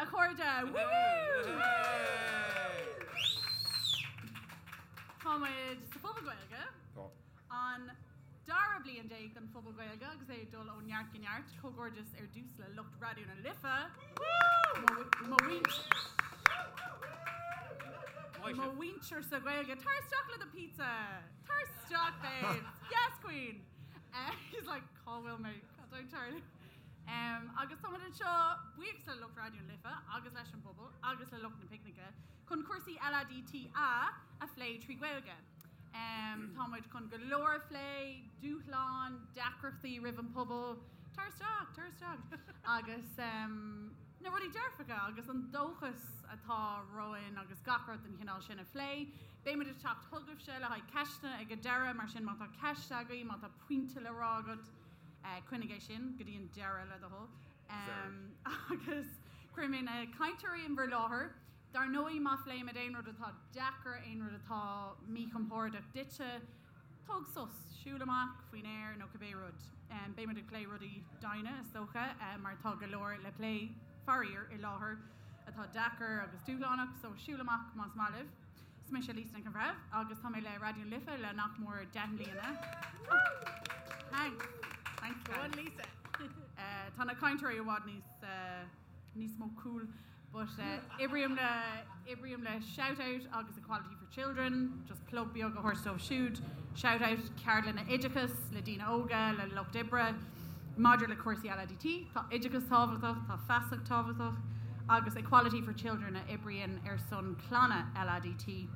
a chairde! Woo! Tá muid sa Phuball Gaeilge. Tá. An dara bliain déag den Phuball Gaeilge agus é ag dul ó neart go neart. Comhghairdeas ar dtús le lucht Raidió na Life. Mo mhuintir sa Ghaeilge. Tar isteach le do pizza! Tar isteach, babes! Yes, queen! He's like, cá bhfuil mé? Cad tá ag tarlú? Agus tá muid anseo buíochas le lucht Raidió na Life agus leis an bpobal agus le lucht na picnice chun cúrsaí LADTA a phlé trí Ghaeilge. Tá muid chun go leor a phlé, dúshláin, deacrachtaí roimh an pobal, tar isteach, tar isteach, agus na rudaí dearfacha agus an dóchas atá romhainn agus gach rud den chineál sin a phlé. Beidh muid ag teacht chugaibhse le haghaidh ceisteanna ag an deireadh, mar sin má tá ceist agaibh, má tá pointe le rá agat, coinnigh é sin go dtí an deireadh le do thoil. Agus cuirfidh mé na cainteoirí in bhur láthair. Dar ndóigh, má phléimid aon rud atá deacair, aon rud atá míchompordach duitse, tóg sos, siúil amach faoin aer nó cibé rud. Beidh muid ag plé rudaí doimhne, is dócha, mar tá go leor le plé, faraor, i láthair atá deacair agus dúshlánach, so siúil amach más maith libh. Is mise Lisa Nic an Bhreithimh agus tá mé le Raidió na Life le nach mór 10 mbliana. Thanks. Thanks, Go on, guys. Lisa. Tá na cainteoirí i bhfad níos níos mó cool. But oibrím le oibrím le Shout Out agus Equality for Children, just plug beag a thabhairt dóibh siúd. Shout Out ceardlanna oideachais le daoine óga, le lucht oibre maidir le cúrsaí LADT. Tá oideachas tábhachtach, tá feasacht tábhachtach agus Equality for Children a oibríonn ar son clanna LADT,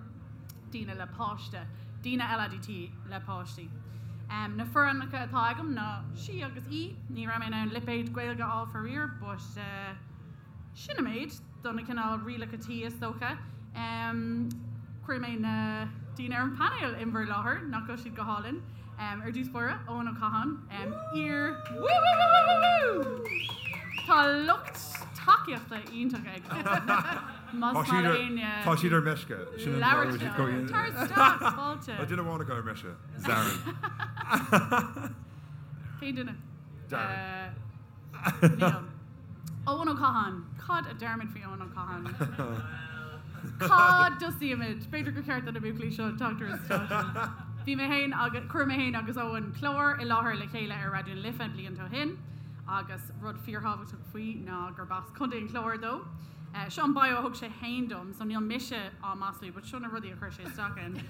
daoine le páiste, daoine LADT le páistí. Na forainmneacha atá agam ná sí agus í. Ní raibh mé in ann lipéad Gaeilge a fháil faraor, but sin an méid do na cineál rialacha tí is dócha. Cuirfidh mé na daoine ar an bpainéal in bhur láthair, nach bhfuil siad go hálainn. Ar dtús báire, Eoin Ó Catháin, iar. Woo woo woo woo woo! Tá lucht tacaíochta iontach ag Eoin. Más Tá maith siad le ar éinne tá siad ar meisce. Sin an labhairt fáth leo. go bhfuil siad Tar isteach, fáilte. Tá duine amháin acu ar meisce, Darren. Cén duine? Darren. Níl. Eoin Ó Catháin. Cad a deirimid faoi Eoin Ó Catháin? Cá dtosaímid? B'fhéidir gur cheart do na buachaillí seo teacht ar an stáitse. Bhí mé féin agus, chuir mé féin agus Eoin clár i láthair le chéile ar Raidió na Life blianta ó shin agus rud fíorthábhachtach faoi ná gurb as Contae an Chláir dó. Seo an bio a thug sé féin dom, so níl mise á maslú, but seo na rudaí a chuir sé isteach ann.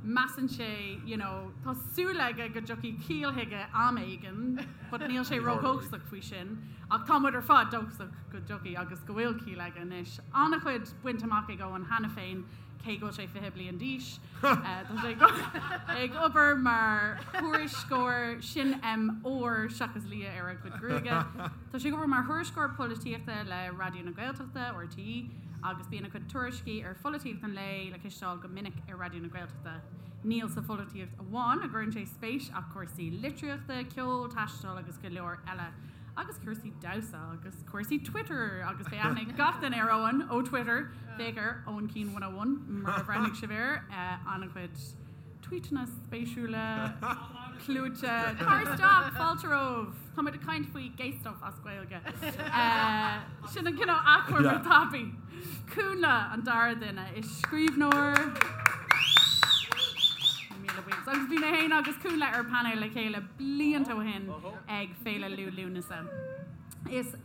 Measann sé, you know, tá súil aige go dtiocfaidh ciall chuige am éigin, but níl sé ródhóchasach faoi sin. Ach tá muid ar fad dóchasach go dtiocfaidh agus go bhfuil ciall aige anois. An-chuid bainte amach ag Eoin cheana féin, cé go bhfuil sé 20 bliain d'aois. Tá sé ag obair mar thuairisceoir, sin M ór seachas liath ar a chuid gruaige. Tá sé ag obair mar thuairisceoir polaitíochta le Raidió na Gaeltachta, RTÉ, agus bíonn a chuid tuairiscí ar pholaitíocht an lae le cloisteáil go minic ar Raidió na Gaeltachta. Níl sa pholaitíocht amháin a gcuireann sé spéis ach cúrsaí litríochta, ceol, taisteal agus go leor eile. Agus cúrsaí damhsa agus cúrsaí Twitter agus beidh aithne ag gach duine ar Eoin ó Twitter, féach ar Eoin Keane 101 murar bhreathnaigh sibh air, an-chuid tweetanna spéisiúla, clúite. Tar isteach, fáilte romhaibh! Tá muid ag caint faoi gay stuff as Gaeilge. Sin an cineál achoimre tapaidh. Cúnla an dara duine. Is scríbhneoir. Míle buíochas. Agus bhí mé féin agus Cúnla ar painéal le chéile blianta ó shin ag Féile Liú Lúnasa. Is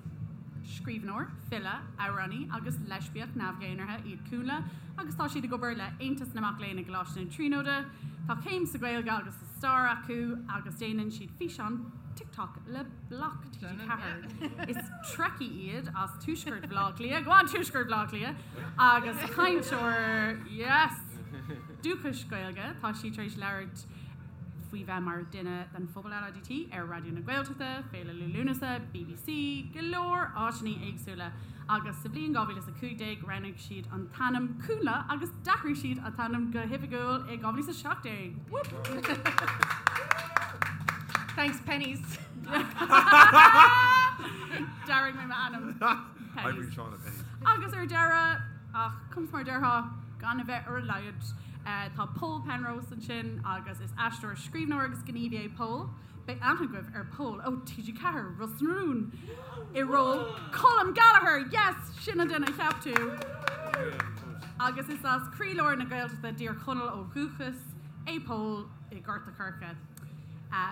scríbhneoir, file, amhránaí agus leispiach neamh-dhénártha iad Cúnla agus tá siad ag obair le Aontas na Mac Léinn i gColáiste na Tríonóide. Tá céim sa Ghaeilge agus sa Stair acu agus déanann siad físeáin TikTok le Bloc TG4. Is Trekkie iad as Tuaisceart Bhaile Átha Cliath, go on Tuaisceart Bhaile Átha Cliath, agus cainteoir, yes! dúchais Gaeilge. Tá siad tar éis labhairt faoi bheith mar dhuine den phobal LADT ar Raidió na Gaeltachta, Féile Liú Lúnasa, BBC, go leor áiteanna éagsúla agus sa bhliain 2015 roghnaigh siad an t-ainm Cúnla agus d'athraigh siad a t-ainm go hoifigiúil i 2017. Whoop! Thanks, Penneys. D'athraigh mé m'ainm. Penneys. Oibríonn Seán le Penneys. Agus ar deireadh, ach conas mar a déarfá, gan a bheith ar a laghad, tá Pól Penrose ansin agus is aisteoir, scríbhneoir agus gníomhaí é Pól. Beidh aithne agaibh ar Pól ó TG4, Ros na Rún, i ról Colm Gallagher! Yes! Sin an duine a cheap tú! Agus is as croílár na Gaeltachta i dTír Chonaill ó dhúchas é Pól i nGort a' Choirce.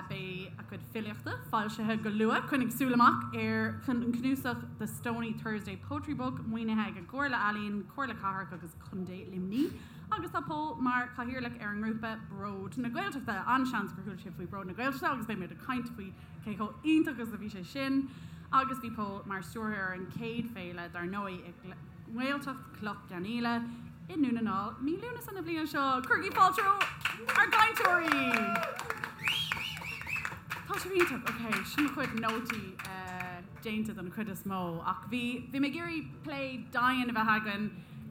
Beidh a chuid filíochta foilsithe go luath. Coinnigh súil amach ar an cnuasach The Stony Thursday Poetry Book, maoinithe ag an gComhairle Ealaíon, Comhairle Cathrach agus Contae Luimnigh. Agus tá Pól mar chathaoirleach ar an ngrúpa Bród na Gaeltachta. An-seans gur chuala sibh faoi Bród na Gaeltachta agus beidh muid ag caint faoi cé chomh iontach is a bhí sé sin. Agus bhí Pól mar stiúrthóir ar an chéad féile dar ndóigh i nGaeltacht Cloich Cheann Fhaola i nDún na nGall mí Lúnasa na bliana seo. Cuirigí fáilte roimh ár gcainteoirí! Tá sibh iontach. Ok, sin mo chuid nótaí déanta den chuid is mó ach bhí bhí mé ag iarraidh plé domhain a bheith againn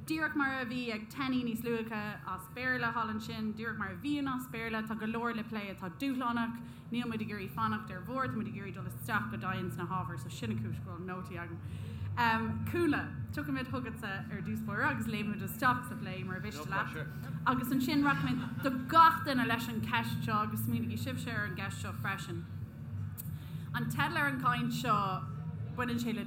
díreach mar a bhí ag Tenny níos luaithe as Béarla thall ansin, díreach mar a bhíonn as Béarla, tá go leor le plé atá dúshlánach, níl muid ag iarraidh fanacht ar bhord, tá muid ag iarraidh dul isteach go domhain sna hábhair, so sin an chúis go bhfuil nótaí agam. Cúnla, tiocfaimid chugatsa ar dtús báire agus léimfimid isteach sa phlé mura mhiste leat. Agus ansin rachaimid do gach duine leis an cheist seo agus smaoinigí sibhse ar an gceist seo freisin. An teideal ar an gcaint seo, baineann sé le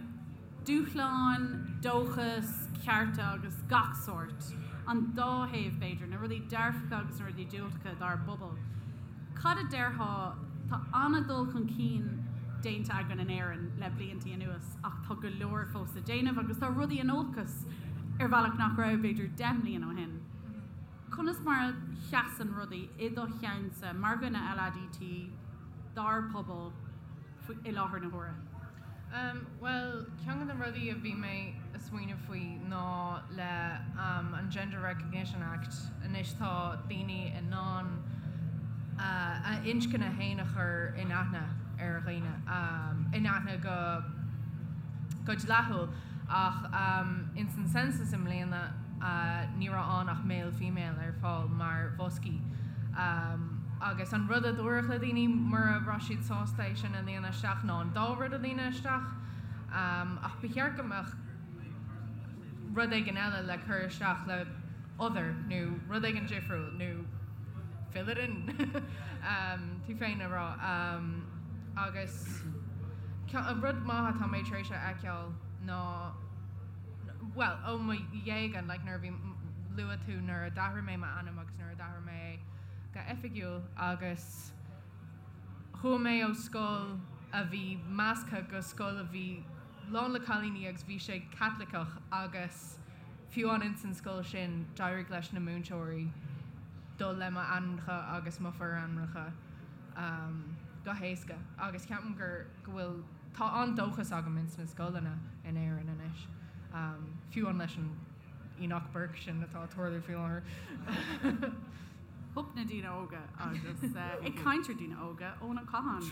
dúshláin, dóchas, cearta agus gach sórt. An dá thaobh, b'fhéidir, na rudaí dearfacha agus na rudaí diúltacha dár bpobal. Cad a déarfá, tá an-dul chun cinn déanta againn in Éirinn le blianta anuas ach tá go leor fós le déanamh agus tá rudaí in olcas ar bhealach nach raibh, b'fhéidir, 10 mbliana ó shin. Conas mar a sheasann rudaí i do cheannsa mar dhuine LADT dár bpobal i láthair na huaire? Bhuel, ceann de na rudaí a bhí mé ag smaoineamh faoi ná le an Gender Recognition Act, anois tá daoine in ann a n-inscne féin a chur in aithne ar dhaoine, in aithne go go dleathúil ach ins an census i mbliana ní raibh ann ach male female ar fáil mar bhoscaí agus an rud a dúradh le daoine mura raibh siad sásta é sin a líonadh isteach ná an dá rud a líonadh isteach ach ba cheart go mbeadh rud éigin eile le cur isteach le other nó rud éigin difriúil nó fill it in tú féin a rá agus rud maith atá mé tar éis a fheiceáil ná bhuel, ó mo dhéaga, like nuair a bhí, luaigh tú nuair a d'athraigh mé m'ainm agus nuair a d'athraigh mé é go oifigiúil agus chuaigh mé ó scoil a bhí measctha go scoil a bhí lán le cailíní agus bhí sé Caitliceach agus fiú amháin ins an scoil sin d'éirigh leis na múinteoirí dul le m'ainmneacha agus mo forainmneacha go héasca agus ceapaim gur go bhfuil Tá an-dóchas agam ins na scoileanna in Éirinn anois, fiú amháin leis an Enoch Burke sin atá ag tarlú faoi láthair. Hup na daoine óga agus ag caint ar daoine óga, Eoin Ó Catháin.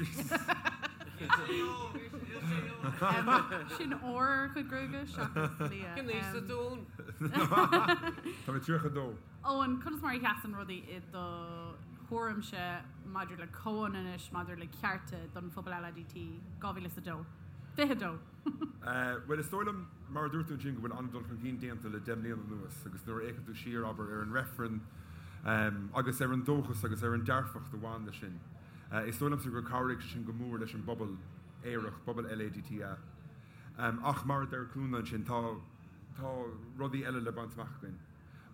Sin ór ar a chuid gruaige seachas liath. Cén aois atá tú, Eoin? Tá mé 32. Eoin, conas mar a sheasann rudaí i do thuairimse maidir le comhionannas, maidir le cearta don phobal LADT, 2002? 22. Bhuel, is dóigh liom, mar a dúirt tú ansin, go bhfuil an-dul chun cinn déanta le 10 mbliana anuas agus nuair a fhéachann tú siar, abair, ar an reifreann agus ar an dóchas agus ar an dearfacht a bhain leis sin, is dóigh liomsa gur chabhraigh sé sin go mór leis an bpobal aerach, pobal LADTA. Ach mar a deir Cúnla ansin, tá tá rudaí eile le baint amach againn.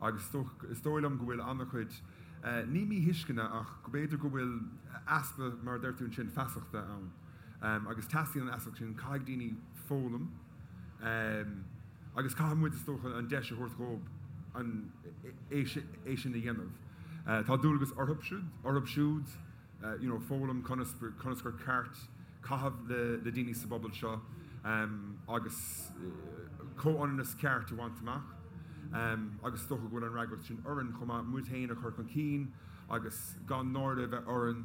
Agus is dóigh liom go bhfuil an-chuid, ní míthuisceana ach go b'fhéidir go bhfuil easpa, mar a deir tú ansin, feasachta ann. Agus teastaíonn an fheasacht sin, caithfidh daoine foghlaim agus caithfidh muid, is dócha, an deis a thabhairt dhóibh an, é sin a dhéanamh. Tá dualgas orthu siúd, orthu siúd you know foghlaim conas, conas gur ceart caitheamh le, le daoine sa bpobal seo agus comhionannas ceart a bhaint amach agus is dócha go bhfuil an fhreagracht sin orainn chomh maith, muid féin a chur chun cinn agus gan náire a bheith orainn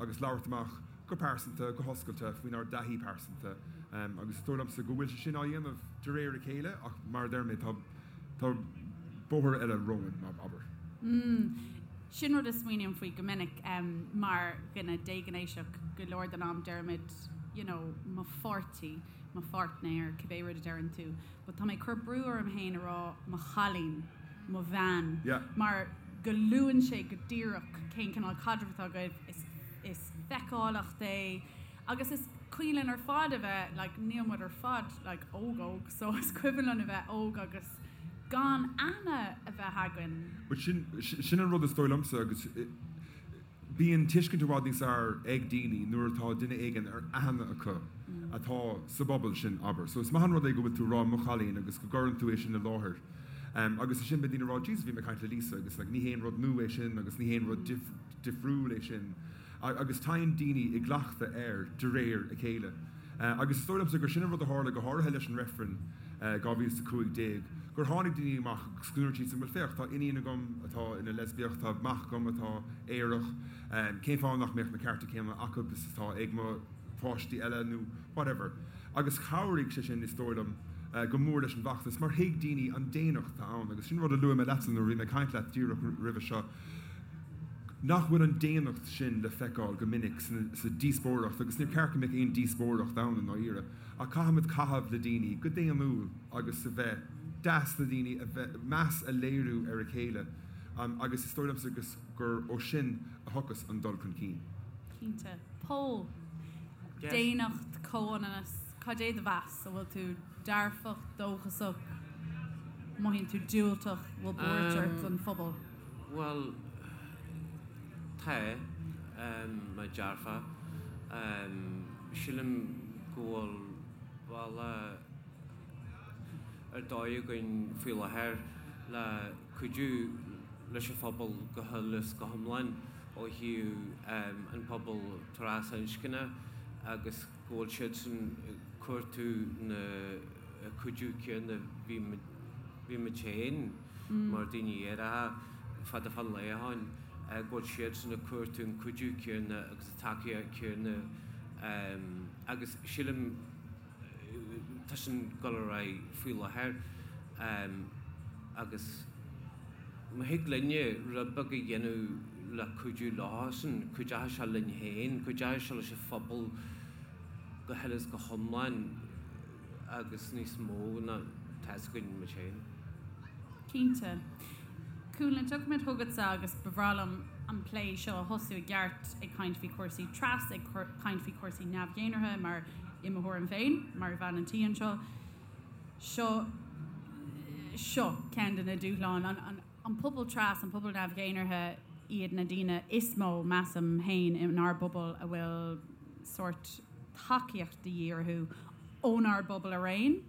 agus labhairt amach go pearsanta, go hoscailte faoinár dtaithí pearsanta agus is dóigh liomsa go bhfuil sé sin á dhéanamh de réir a chéile ach mar a deir mé tá, tá bóthar eile romhainn, abair. Sin rud a smaoiním faoi go minic mar dhuine déghnéasach, go leor den am deirimid you know mo pháirtí, mo pháirtnéir, cibé rud a deireann tú, but tá mé ag cur brú orm féin a rá mo chailín, mo bhean, mar go luann sé go díreach cén cineál caidrimh atá agaibh, is, is. feiceálacht é agus is cuimhin linn ar fad a bheith like níl muid ar fad like óg óg so is cuimhin linn a bheith óg agus gan aithne a bheith againn. But sin sin an rud is dóigh liomsa agus bíonn tuiscint i bhfad níos fhearr ag daoine nuair atá duine éigin ar aithne acu atá sa bpobal sin, abair. So is maith an rud é go bhfuil tú ag rá mo chailín agus go gcuireann tú é sin i láthair. Agus ansin beidh daoine ag rá Jesus bhí mé ag caint le Lisa agus like ní haon rud nua é sin agus ní haon rud difriúil é sin. Agus tagann daoine i gcleachtadh air de réir a chéile. Agus is dóigh liomsa gur sin an rud a tharla go háirithe leis an reifreann 2015, gur tháinig daoine amach agus go ndúirt siadsan, bhuel féach, tá iníon agam atá ina leispiach, tá mac agam atá aerach, cén fáth nach mbeadh na cearta céanna acu is atá ag mo pháistí eile nó whatever. Agus chabhraigh sé sin, is dóigh liom, go mór leis an bhfeachtas mar thuig daoine an daonnacht atá ann agus sin rud a luaigh mé leatsa nuair a bhí mé ag caint leat díreach roimhe seo, nach bhfuil an daonnacht sin le feiceáil go minic sa díospóireacht agus níor cheart go mbeadh aon díospóireacht ann i ndáiríre ach caithfimid caitheamh le daoine go daonnúil agus a bheith deas le daoine, a bheith, meas a léiriú ar a chéile agus is dóigh liomsa gur ó sin a thiocfas an dul chun cinn. Cinnte. Pól, daonnacht, comhionannas, cad é do mheas? An bhfuil tú dearfach, dóchasach, mothaíonn tú diúltach, bhfuil buairt ort don phobal? Bhuel, tá mé dearfach. Sílim go bhfuil bealach ar dóigh againn faoi láthair le cuidiú leis an phobal go huile is go hiomlán ó thaobh an pobal trasinscne agus go bhfuil siadsan ag cuartú na cuidiú céanna bhí muid féin mar daoine aeracha fada fán lá ó shin, go bhfuil siadsan ag cuartú an cuidiú céanna agus an tacaíocht céanna agus sílim tá sin ag dul ar aghaidh faoi láthair agus má thig linne rud beag a dhéanamh le cuidiú leosan, cuideoidh sé linn féin, cuideoidh sé leis an phobal go huile is go hiomlán agus níos mó ná tá fhios againn muid féin. Cinnte. Cúnla, tiocfaimid chugatsa agus ba bhreá liom an plé seo a thosú i gceart ag caint faoi chúrsaí tras, ag caint faoi chúrsaí neamh-dhénartha mar i mo thuairim féin, mar bhean an tí anseo, seo seo ceann de na dúshláin. An an pobal tras, an pobal neamh-dhénartha iad na daoine is mó, measaim féin, inár bpobal a bhfuil sórt tacaíocht de dhíth orthu ónár bpobal araon,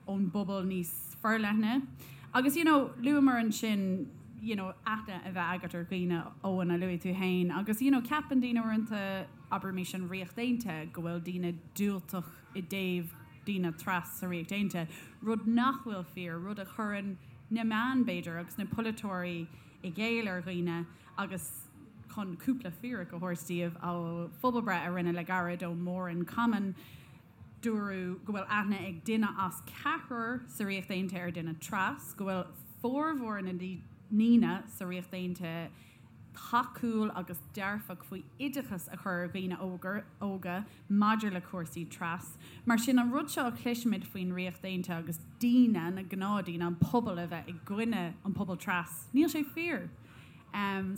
ón bpobal níos forleithne. Agus you know, luamar ansin you know, aithne a bheith agat ar dhaoine, Eoin, a luaigh tú féin, agus you know, ceapann daoine uaireanta, abraimis an Ríocht Aontaithe, go bhfuil daoine diúltach i dtaobh daoine tras sa Ríocht Aontaithe, rud nach bhfuil fíor, rud a chuireann na meáin, b'fhéidir, agus na polaiteoirí i gcéill ar dhaoine agus chun cúpla fíric a thabhairt daoibh ó phobalbhreith a rinneadh le gairid ó More in Common, Dúradh go bhfuil aithne ag duine as ceathrar sa Ríocht Aontaithe ar dhuine tras, go bhfuil formhór na ndaoine sa Ríocht Aontaithe tacúil agus dearfach faoi oideachas a chur ar dhaoine óga maidir le cúrsaí tras. Mar sin, an rud seo a chloisimid faoin Ríocht Aontaithe agus daoine, na gnáthdaoine, an pobal a bheith i gcoinne an pobal tras, níl sé fíor.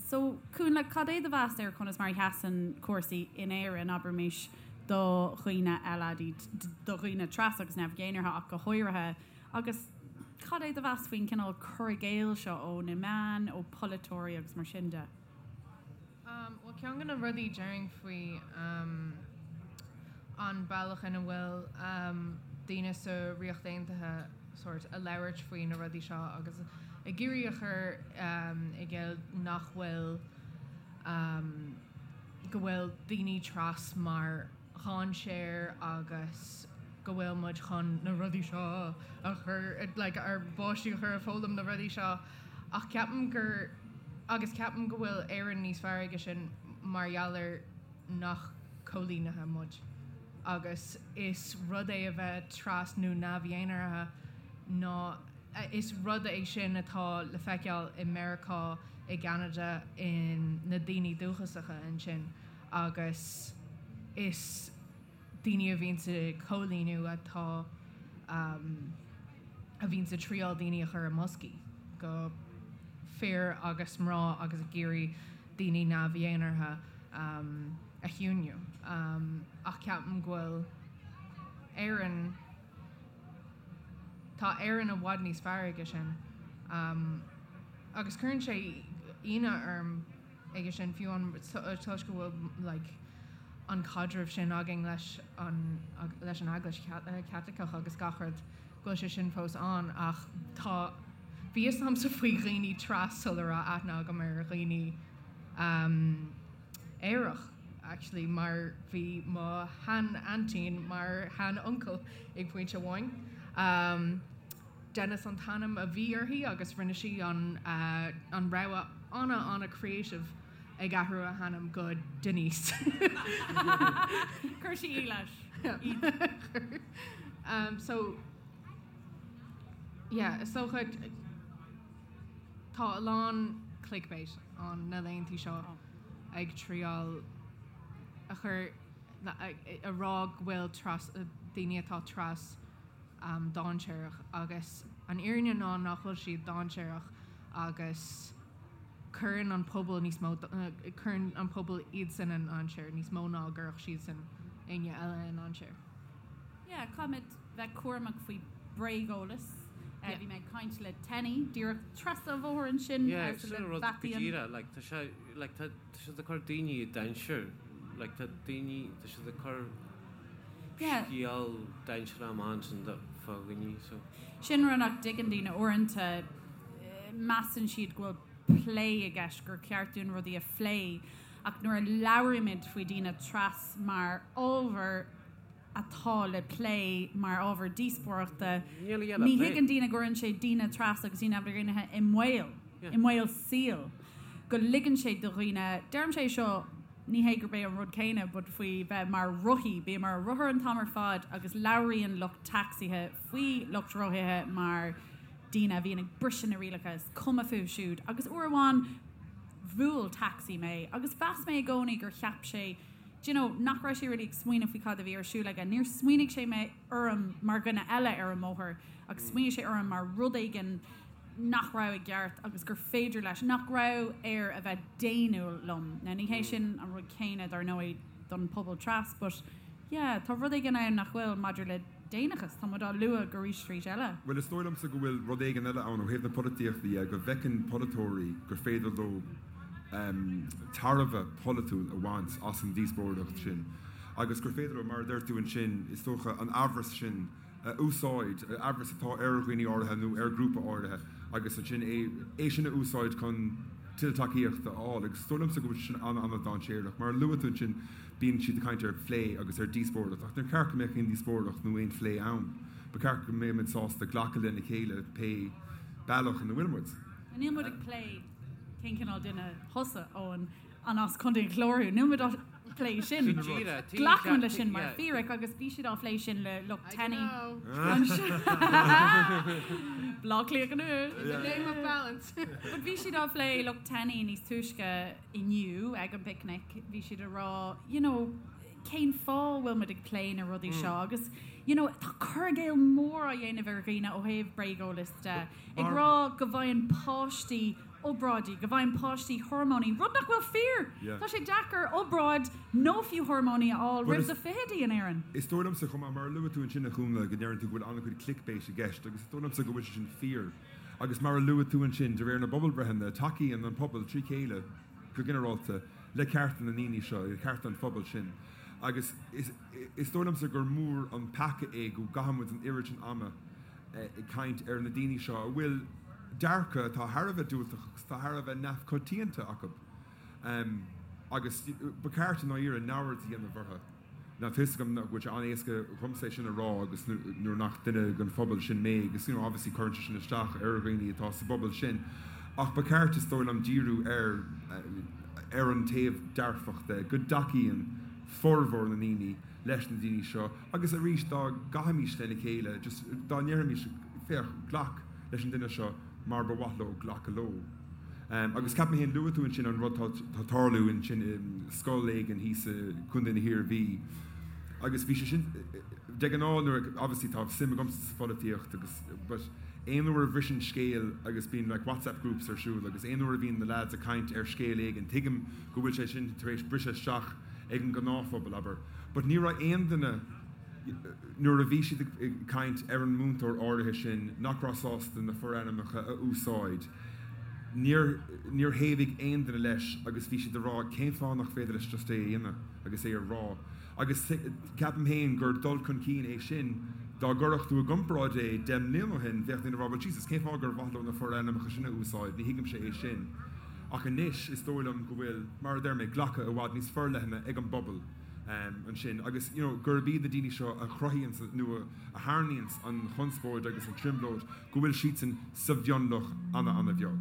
So, Cúnla, cad é do mheas ar conas mar a sheasann cúrsaí in Éirinn, abraimis, do dhaoine LADT, do dhaoine tras agus neamh-dhénartha ach go háirithe, agus cad é do mheas faoin cineál cur i gcéill seo ó na meáin, ó pholaiteoirí agus mar sin de? Bhuel, ceann de na rudaí déarfainn faoi an bealach ina bhfuil daoine sa Ríocht Aontaithe sórt ag labhairt faoi na rudaí seo agus ag iarraidh a chur i gcéill nach bhfuil go bhfuil daoine tras mar dhainséar agus go bhfuil muid chun na rudaí seo a chur like ár bpáistí a chur ag foghlaim na rudaí seo ach ceapaim gur agus ceapaim go bhfuil Éirinn níos fearr aige sin mar gheall ar nach coilínithe muid agus is rud é a bheith tras nó neamh-dhénartha ná is rud é sin atá le feiceáil i Meiriceá, i gCeanada, in na daoine dúchasacha ansin agus is daoine a bhíonns ag coilíniú atá a bhíonns ag triáil daoine a chur i mboscaí go fir agus mná agus ag iarraidh daoine neamh-dhénartha. a chiúiniú. Ach ceapaim go bhfuil Éirinn, tá Éirinn i bhfad níos fearr aige sin. Agus cuireann sé ionadh orm aige sin fiú an toisc go bhfuil like an caidreamh sin againn leis an leis an Eaglais Chaitliceach agus gach rud go bhfuil sé sin fós ann ach tá bhí fhios agamsa faoi dhaoine tras sula raibh aithne agam ar dhaoine aerach actually mar bhí mo shean-aintín mar shean-uncail ag pointe amháin. Dennis an t-ainm a bhí uirthi agus rinne sí an an rogha ana ana creative ag athrú a hainm go Denise. Chuir sí í leis. So yeah, is dócha tá a lán clickbait ann na laethanta seo ag triáil a chur a rá go bhfuil tras daoine atá tras dainséarach agus an fhírinne ná nach bhfuil siad dainséarach agus cuireann an pobal níos mó cuireann an pobal iadsan i ndainséar níos mó ná a gcuirfeadh siadsan éinne eile i ndainséar. Yeah, caithfimid bheith cúramach faoi bréageolas. Bhí mé ag caint le Tenny díreach trasna an bhóthair ansin Yeah, sin an rud go díreach, like tá sé like tá siad ag cur daoine i dainséar, like tá daoine tá siad ag cur scéal dainséarach amach ansin fá dhaoine so. Sin rud nach dtuigeann daoine uaireanta, measann siad go bhfuil plé i gceist, gur ceart dúinn rudaí a phlé, ach nuair a labhraímid faoi daoine tras mar ábhar atá le plé, mar ábhar díospóireachta, ní thuigeann daoine go gcuireann sé daoine tras agus daoine androiginithe i mbaol, i mbaol saoil, go ligeann sé do dhaoine, deirimse é seo, ní hé gurb é an rud céanna but faoi bheith mar rothaí, bím ar rothar an t-am ar fad agus labhraíonn lucht tacsaithe faoi lucht rothaithe mar daoine a bhíonn ag briseadh na rialacha, is cuma fúthu siúd. Agus uair amháin bhuail tacsaí mé agus mheas mé i gcónaí gur cheap sé, do you know, nach raibh sé really ag smaoineamh faoi cad a bhí ar siúl aige. Níor smaoinigh sé mé orm mar dhuine eile ar an mbóthar ach smaoinigh sé orm mar rud éigin nach raibh i gceart agus gur féidir leis, nach raibh air a bheith daonnúil liom. Now ní hé sin an rud céanna dar ndóigh don pobal tras but yeah tá rud éigin ann nach bhfuil maidir le daonnachas, tá muid á lua go arís arís eile. Bhuel is dóigh liomsa go bhfuil rud éigin eile ann ó thaobh na polaitíochta dhe, go bhfeiceann polaiteoirí gur féidir leo tairbhe polaitiúil a bhaint as an díospóireacht sin agus gur féidir leo, mar a deir tú ansin, is dócha, an amhras sin a úsáid, amhras atá ar dhaoine áirithe nó ar ghrúpa áirithe agus ansin é é sin a úsáid chun tuilleadh tacaíochta a fháil. Agus is dóigh liomsa go bhfuil sé sin an-an-dainséarach. Mar a luaigh tú ansin, bíonn siad ag caint ar phlé agus ar díospóireacht ach níor cheart go mbeadh aon díospóireacht nó aon phlé ann. Ba cheart go mbeadh muid sásta glacadh lena chéile pé bealach ina bhfuil muid. Níl muid ag plé cén cineál duine thusa, Eoin, an as Contae an Chláir thú? Níl muid á phlé sin. Glacaim leis sin mar fíric agus bhí siad á phlé sin le lucht Tenny. Bleá Cliath anois. In the name of balance. But bhí siad á phlé lucht Tenny níos túisce inniu ag an bpicnic, bhí siad ag rá you know cén fáth a bhfuil muid ag plé na rudaí seo agus you know tá cur i gcéill mór á dhéanamh ar dhaoine ó thaobh bréageolas de, ag rá go bhfaigheann páistí obráidí, go bhfaigheann páistí hormóiní, rud nach bhfuil fíor! Tá sé deacair obráid nó fiú hormóiní a fháil roimh do fichidí in Éirinn. Is dóigh liomsa chomh maith, mar a luaigh tú ansin a Chúnla, go ndeireann tú go bhfuil an-chuid clickbait i gceist agus is dóigh liomsa go bhfuil sé sin fíor. Agus mar a luaigh tú ansin, de réir na bpobalbhreitheanna, tacaíonn an pobal trí chéile, go ginearálta, le cearta na ndaoine seo, le cearta an phobail sin. Agus is dóigh liomsa gur mór an peaca é go gcaitheann muid an oiread sin ama ag caint ar na daoine seo a bhfuil dearcadh atá thar a bheith diúltach agus atá thar a bheith neamhchoitianta acu. Agus ba cheart i ndáiríre neamhaird a dhéanamh orthu. Now tá fhios agam nach bhfuil sé an-éasca dhomsa é sin a rá agus nuair nach duine den phobal sin mé agus you know obviously cuireann sé sin isteach ar dhaoine atá sa bpobal sin ach ba cheart is dóigh liom díriú ar ar an taobh dearfach de, go dtacaíonn formhór na ndaoine leis na daoine seo agus arís dá gcaithfimis lena chéile just dá ndéarfaimis féach glac leis an duine seo mar ba mhaith leo glacadh leo. Agus ceapaim féin, luaigh tú ansin an rud atá tarlú ansin i scoil éigin thíos i gContae na hIarmhí agus bhí sé sin, de ghnáth nuair a, obviously tá suim agamsa sa pholaitíocht agus but aon uair a bhriseann scéal agus bíonn like WhatsApp groups ar siúl agus aon uair a bhíonn na lads ag caint ar scéal éigin tuigim go bhfuil sé sin tar éis briseadh isteach. ag an ngnáthphobal, abair. But ní raibh aon duine, nuair a bhí siad ag caint ar an múinteoir áirithe sin nach raibh sásta na forainmneacha a úsáid, níor, níor thaobhaigh aon duine leis agus bhí siad ag rá cén fáth nach féidir leis just é a dhéanamh agus é a rá. Agus ceapaim féin gur dul chun cinn é sin, dá gcuirfeadh tú i gcomparáid é 10 mbliana ó shin, bheadh daoine ag rá well Jesus, cén fáth gur mhaith leo na forainmneacha sin a úsáid, ní thuigimse é sin. Ach anois is dóigh liom go bhfuil, mar a deir mé, glacadh i bhfad níos forleithne ag an bpobal ansin agus you know gurb iad na daoine seo a chruthaíonns nó a tharraingíonns an chonspóid agus an trioblóid, go bhfuil siadsan sa mhionlach ana-ana-bheag.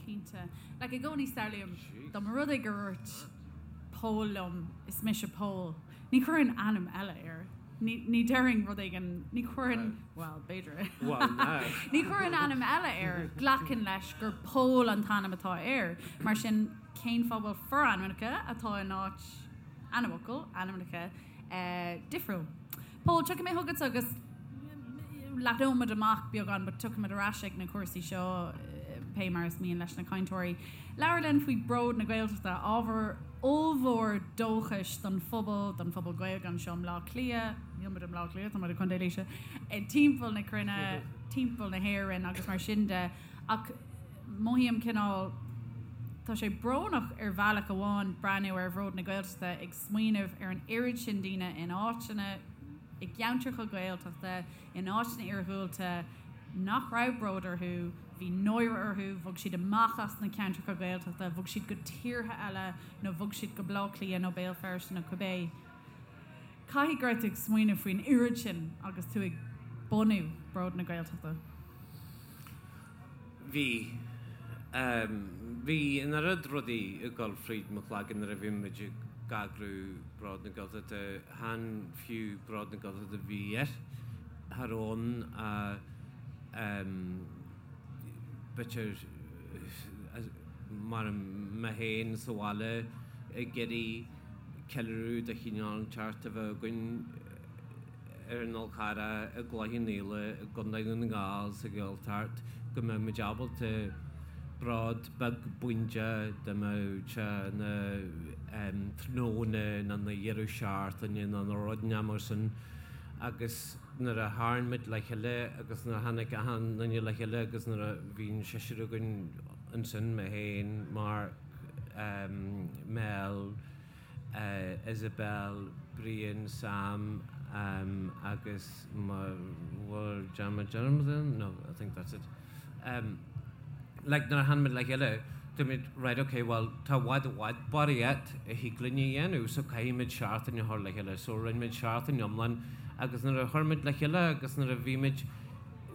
Cinnte. Like i gcónaí samhlaím dá mba rud é gur dhúirt Pól liom, is mise Pól. Ní chuirfinn ainm eile air. Ní, ní déarfainn rud éigin, ní chuirfinn, bhuel, b'fhéidir. Bhuel, now. Ní chuirfinn ainm eile air. Glacaim leis gur Pól an t-ainm atá air. Mar sin, cén fáth a bhfuil forainmneacha atá in áit ainmfhocal, ainmneacha, eh, difriúil? Pól, tiocfaidh mé chugatsa agus leathnóimid amach beagán but tiocfaimid ar ais ag na cúrsaí seo pé mar is mian leis na cainteoirí. Labhair linn faoi Bród na Gaeltachta, ábhar ollmhór dóchais don phobal, don phobal Gaeilge anseo i mBleá Cliath, níl muid i mBleá Cliath, tá muid i gContae Laoise, timpeall na cruinne, timpeall na hÉireann agus mar sin de. Ach mothaím cineál, tá sé brónach ar bhealach amháin breathnú ar Bhród na Gaeltachta ag smaoineamh ar an oiread sin daoine in áiteanna, i gceantracha Gaeltachta, in áiteanna iarghúlta nach raibh bród orthu, bhí náire orthu, bhog siad amach as na ceantracha Gaeltachta, bhog siad go tíortha eile nó bhog siad go Baile Átha Cliath nó Béal Feirste nó cibé. Caithfidh go raibh tú ag smaoineamh faoin oiread sin agus tú ag bunú Bród na Gaeltachta. Bhí. Bhí an oiread rudaí ag dul fríd mo chloigeann nuair a bhí muid ag eagrú Bród na Gaeltachta, chan fiú Bród na Gaeltachta a bhí air, cha raibh ann ach b'fhéidir mar mé féin sa bhaile ag iarraidh ceiliúradh de chineál inteacht a bheith againn. ar an Fhál Carrach, i gCloich Cheann Fhaola, i gContae Dhún na nGall, sa Ghaeltacht, go mbeadh muid ábalta bród beag bídeach dá mbeadh sé ina tráthnóna nó ina dheireadh seachtaine nó ina rud inteacht mar sin agus nuair a tharraing muid le chéile agus nuair a tháinig achan duine le chéile agus nuair a bhí an seisear againn ansin, mé féin, Mark, Mel, Isabel, Brian, Sam agus bhfuil dearmad déanta no I think that's it. Like nuair a tháinig muid le chéile dúirt muid right ok well tá i bhfad i bhfad barraíocht a thig linn a dhéanamh so caithfidh muid seachtain a chur le chéile so rinne muid seachtain iomlán agus nuair a chuir muid le chéile agus nuair a bhí muid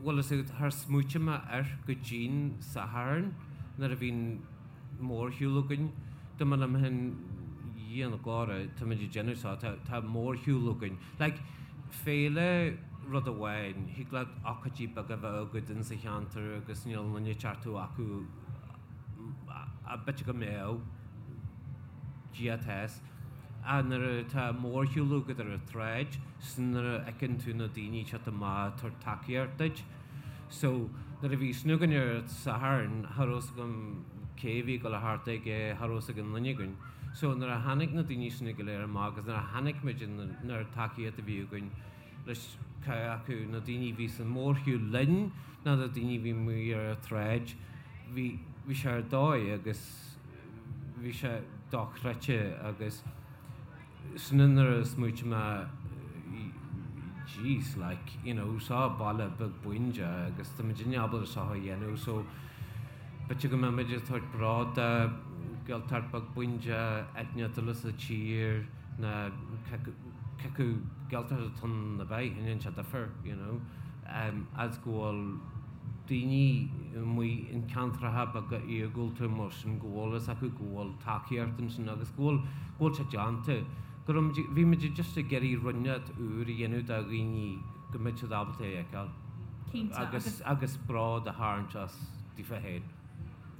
bhfuil fhios agat char smaoitigh mé air go dtí'n Satharn nuair a bhí an mórshiúl againn. Dúirt mé liom féin, Dhia na glóire, tá muid ag déanamh seo, tá, tá mórshiúl againn. Like, féile rud amháin, thig leat ócáidí beaga a bheith agat in sa cheantar agus níl aon duine ag teacht acu ach b'fhéidir go mbeadh, Dia atá fhios. Ach nuair atá mórshiúl agat ar an tsráid, 's nuair a fheiceann tú na daoine ag teacht amach ag tabhairt tacaíocht duit, So, nuair a bhí sin againn ar an Satharn, cha raibh fhios agam cé a bhí ag dul a theacht aige, cha raibh fhios ag aon duine againn. So, nuair a tháinig na daoine sin go léir amach agus nuair a chonaic muid an oiread tacaíocht a bhí againn leis cé acu na daoine a bhí san mórshiúl linn nó na daoine a bhí amuigh ar an tsráid, bhí, bhí sé ar dóigh agus bhí sé dochreidte agus, Sin nuair a smaoitigh mé jeez like you know seo baile beag bídeach agus tá muidinne ábalta seo a dhéanamh so b'fhéidir go mbeidh muid ag tabhairt bród do Gaeltacht beag bídeach áit eile sa tír nó cé acu Gaeltacht atá ann nó bith, ní dhéanann sé difear you know as go bhfuil daoine amuigh in ceantracha beaga iargúlta mar sin go bhfuil fhios acu go bhfuil tacaíocht ansin agus go bhfuil go bhfuil sé déanta. Go raibh muid, bhí muid just ag iarraidh rud inteacht úr a dhéanamh do dhaoine go mbeadh siad ábalta é a fheiceáil. Cinnte, agus. Agus agus bród a tharraingt as daofa féin.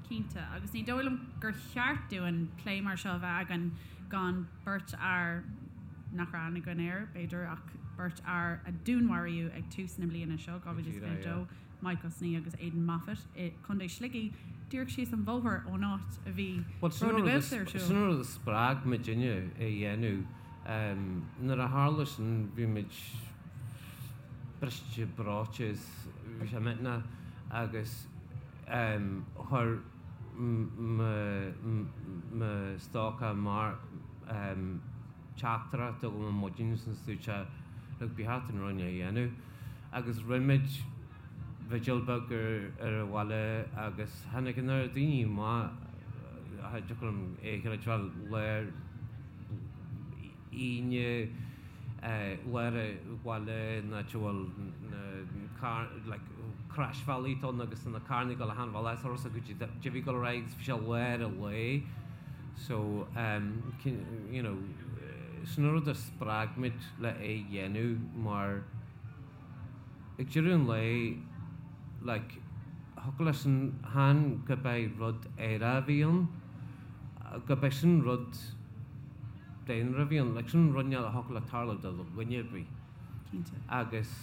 Cinnte, agus ní dóigh liom gur cheart dúinn plé mar seo a bheith againn gan beirt fhear nach raibh aithne againn air, b'fhéidir, ach. Beirt fhear a dúnmharaíodh ag tús na bliana seo, 2022, Mike Ó Snoí agus Aidan Moffitt, i gContae Shligigh, díreach síos an bhóthar ón áit a bhí Bród na Gaeltachta ar siúl. Sin an rud a spreag muidinne é a dhéanamh. Nuair a tharla sin bhí muid briste breoite is bhí sé millteanach agus chuir mo stócach Mark teachtaireacht chugam ar maidin is dúirt sé look ba cheart dúinn rud a dhéanamh agus rinne muid vigil beag ar an bhaile agus tháinig an oiread daoine amach cha dtiocfadh liom é a chreidbheáil lár Aoine lár an bhaile in áit a bhfuil na car like croisbhealaí ann agus na carranna ag dul achan bhealach is orthu go dtí bhí ag dul ar aghaidh agus bhí sé lár an lae so you know sin an rud a spreag muid le é a dhéanamh mar ag deireadh an lae like thiocfadh leis an chan gurb é rud aerach a bhí ann gurb é sin rud daonra a bhí ann like sin rud a thiocfadh le tarlú do dhuine ar bith. Cinnte. Agus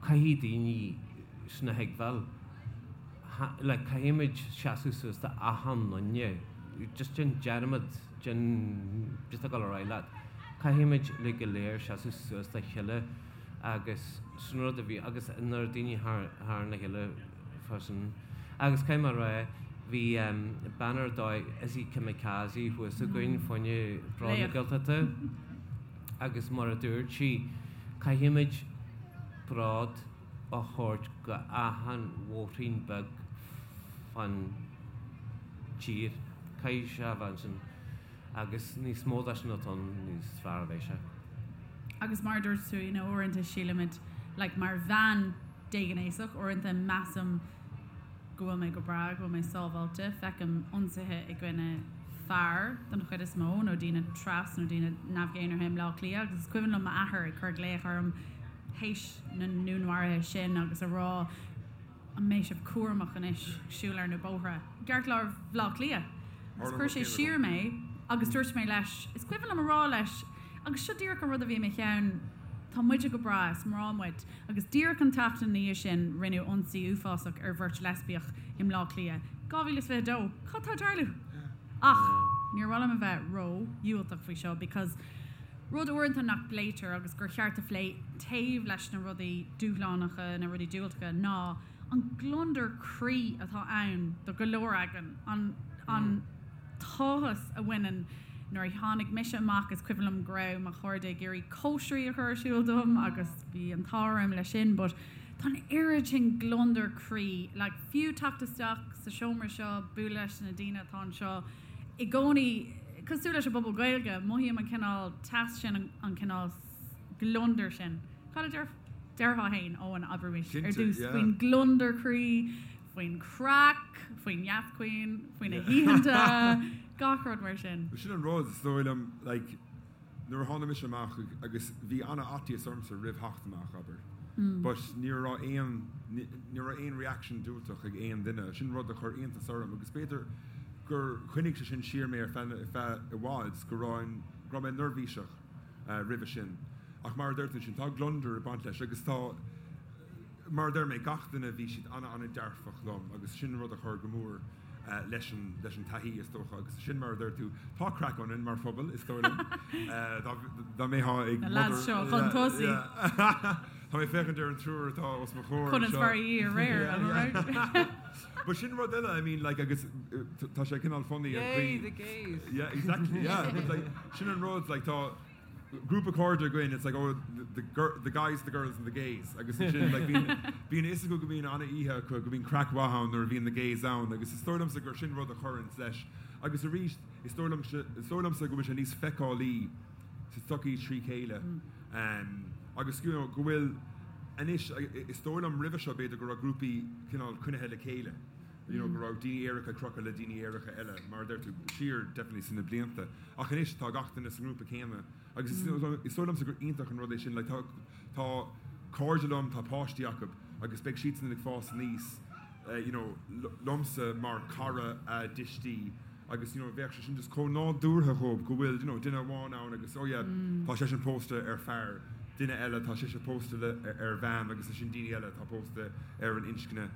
caithfidh daoine sin a thuigbheáil. Like caithfimid seasamh suas do achan duine. Just déan dearmad den just ag dul ar aghaidh leat. Caithfimid uilig go léir seasamh suas dá chéile agus sin rud a bhí agus nuair daoine thar thar na chéile freisin. Agus caithfidh mé a rá bhí bean ar dóigh Izzy Kamikaze thuas againn fá choinne Bród na Laoch. Gaeltachta agus mar a dúirt sí caithfimid bród a thabhairt go achan bhóithrín beag fán tír. Caithfidh sé a bheith ansin agus níos mó de sin atá ann níos fearr a bheidh sé. Agus mar a dúirt tú, you know, uaireanta sílimid, like, mar bhean déghnéasach, uaireanta measaim go bhfuil mé go breá, go bhfuil mé sábháilte, feicim ionsaithe i gcoinne fear den chuid is mó, nó daoine tras nó daoine neamh-dhénártha i mBleá Cliath agus is cuimhin liom m'athair ag cur glaoch orm théis na ndúnmharuithe sin agus a rá an mbeidh sibh cúramach anois ag siúl ar na bóithre i gceartlár Bhaile Átha Cliath. Agus chuir sé siar mé agus dúirt mé leis, is cuimhin liom a rá leis, agus seo díreach an rud a bhí i mo cheann, tá muide go breá, is mná muid. Agus díreach an tseachtain ina dhiaidh sin rinneadh ionsaí uafásach ar bheirt leispiach i mBleá Cliath. 2022, cad tá ag tarlú? Ach níor mhaith liom a bheith ró-dhiúltach faoi seo because rud uaireanta nach bpléitear agus gur cheart a phlé taobh leis na rudaí dúshlánacha, na rudaí diúltacha, ná an gliondar croí atá ann do go leor againn, an an t-áthas a bhaineann nuair a tháinig mise amach is cuimhin liom go raibh mo chairde ag iarraidh cóisirí a chur ar siúl dom agus bhí an t-ádh orm leis sin but tá an oiread sin gliondar croí like fiú teacht isteach sa seomra seo bualadh leis na daoine atá anseo i gcónaí cosúil leis an bpobal Gaeilge mothaím an cineál teas sin an cineál gliondar sin. Cad a deir déarfá féin Eoin abraimis ar dtús faoin gliondar croí faoin craic, faoin neascaoin, faoi na hoícheanta, gach rud mar sin. Sin an rud, is dóigh liom, like, nuair a tháinig mise amach agus bhí an-fhaitíos ormsa roimh theacht amach, abair, but ní raibh aon, ní raibh aon reaction diúltach ag aon duine, sin rud a chuir iontas orm agus b'fhéidir gur choinnigh sé sin siar mé ar feadh, ar feadh i bhfad, go raibh, go raibh mé neirbhíseach roimhe sin. Ach mar a deir tú sin, tá gliondar ag baint leis agus tá, Mar a deir mé, gach duine, bhí siad an-an-dearfach liom agus sin rud a chuir go mór leis an leis an taithí, is dócha. Agus sin mar a deir tú, tá craic ionainn mar phobal, is dóigh liom. Dá mbeifeá ag Na lads seo chun tosaigh. Tá mé ag féachaint ar an triúr atá os mo chomhair anseo. Conas mar a bhí aréir, am I right? But sin rud eile, I mean, like, agus tá sé cineál funny an chaoi. Yay, the gays! Yeah, exactly, yeah. But like, sin an rud, like, tá. grúpa cairde againn, it's like oh the the the guys, the girls and the gays agus ansin like bíonn bíonn a fhios acu go mbíonn an-oíche acu, go mbíonn craic mhaith ann nuair a bhíonn na gays ann agus is dóigh liomsa gur sin rud a chuireanns leis agus arís is dóigh liom is dóigh liomsa go bhfuil sé níos feiceálaí sa tsochaí trí chéile agus you know go bhfuil anois is dóigh liom roimhe seo b'fhéidir go raibh grúpaí cineál coinnithe le chéile. you know, go raibh daoine aeracha ag crochadh le daoine aeracha eile, mar a deir tú, siar definitely sna blianta. Ach anois tá gach duine sa ngrúpa céanna agus is is dóigh liomsa gur iontach an rud é sin, like tá tá cairde liom, tá páistí acu agus beidh siadsan ag fás aníos, you know, liomsa mar cara a dtuistí. agus you know bheadh sé sin just chomh nádúrtha dhóibh go bhfuil you know duine amháin ann agus oh yeah tá seisean pósta ar fear, duine eile tá sise pósta le ar bhean agus ansin daoine eile atá pósta ar an inscne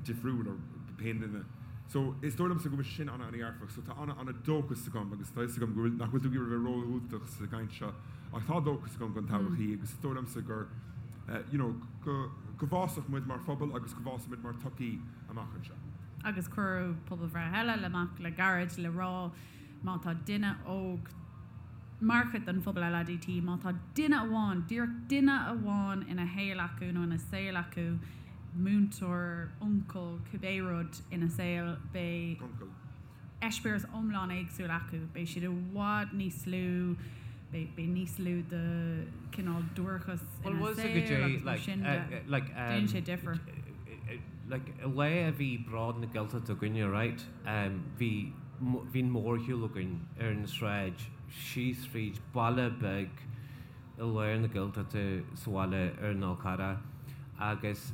difriúil or pé duine. So is dóigh liomsa go bhfuil sé sin an-an-dhearfach so tá an-an-dóchas agam agus tá fhios agam go bhfuil nach bhfuil tú ag iarraidh a bheith ródhiúltach sa gcaint seo ach tá dóchas agam don todhchaí agus is dóigh liomsa gur you know go go bhfásfaidh muid mar phobal agus go bhfásfaidh muid mar tsochaí amach anseo. Agus cuireadh pobalbhreith eile amach le gairid le rá má tá duine óg mar chuid den phobal LADT, má tá duine amháin, díreach duine amháin ina shaol acu nó ina saol acu, múinteoir, uncail, cibé rud ina saol, beidh eispéireas iomlán éagsúil acu, beidh siad i bhfad níos lú, beidh níos lú de chineál duairceas ina saol agus mar sin de. Déanann sé difear. Like, lá a bhí Bród na Gaeltachta againne, right, bhí, bhí an mórshiúl againn ar an sráid síos fríd baile beag i lár na Gaeltachta sa bhaile ar an Fhál Carrach agus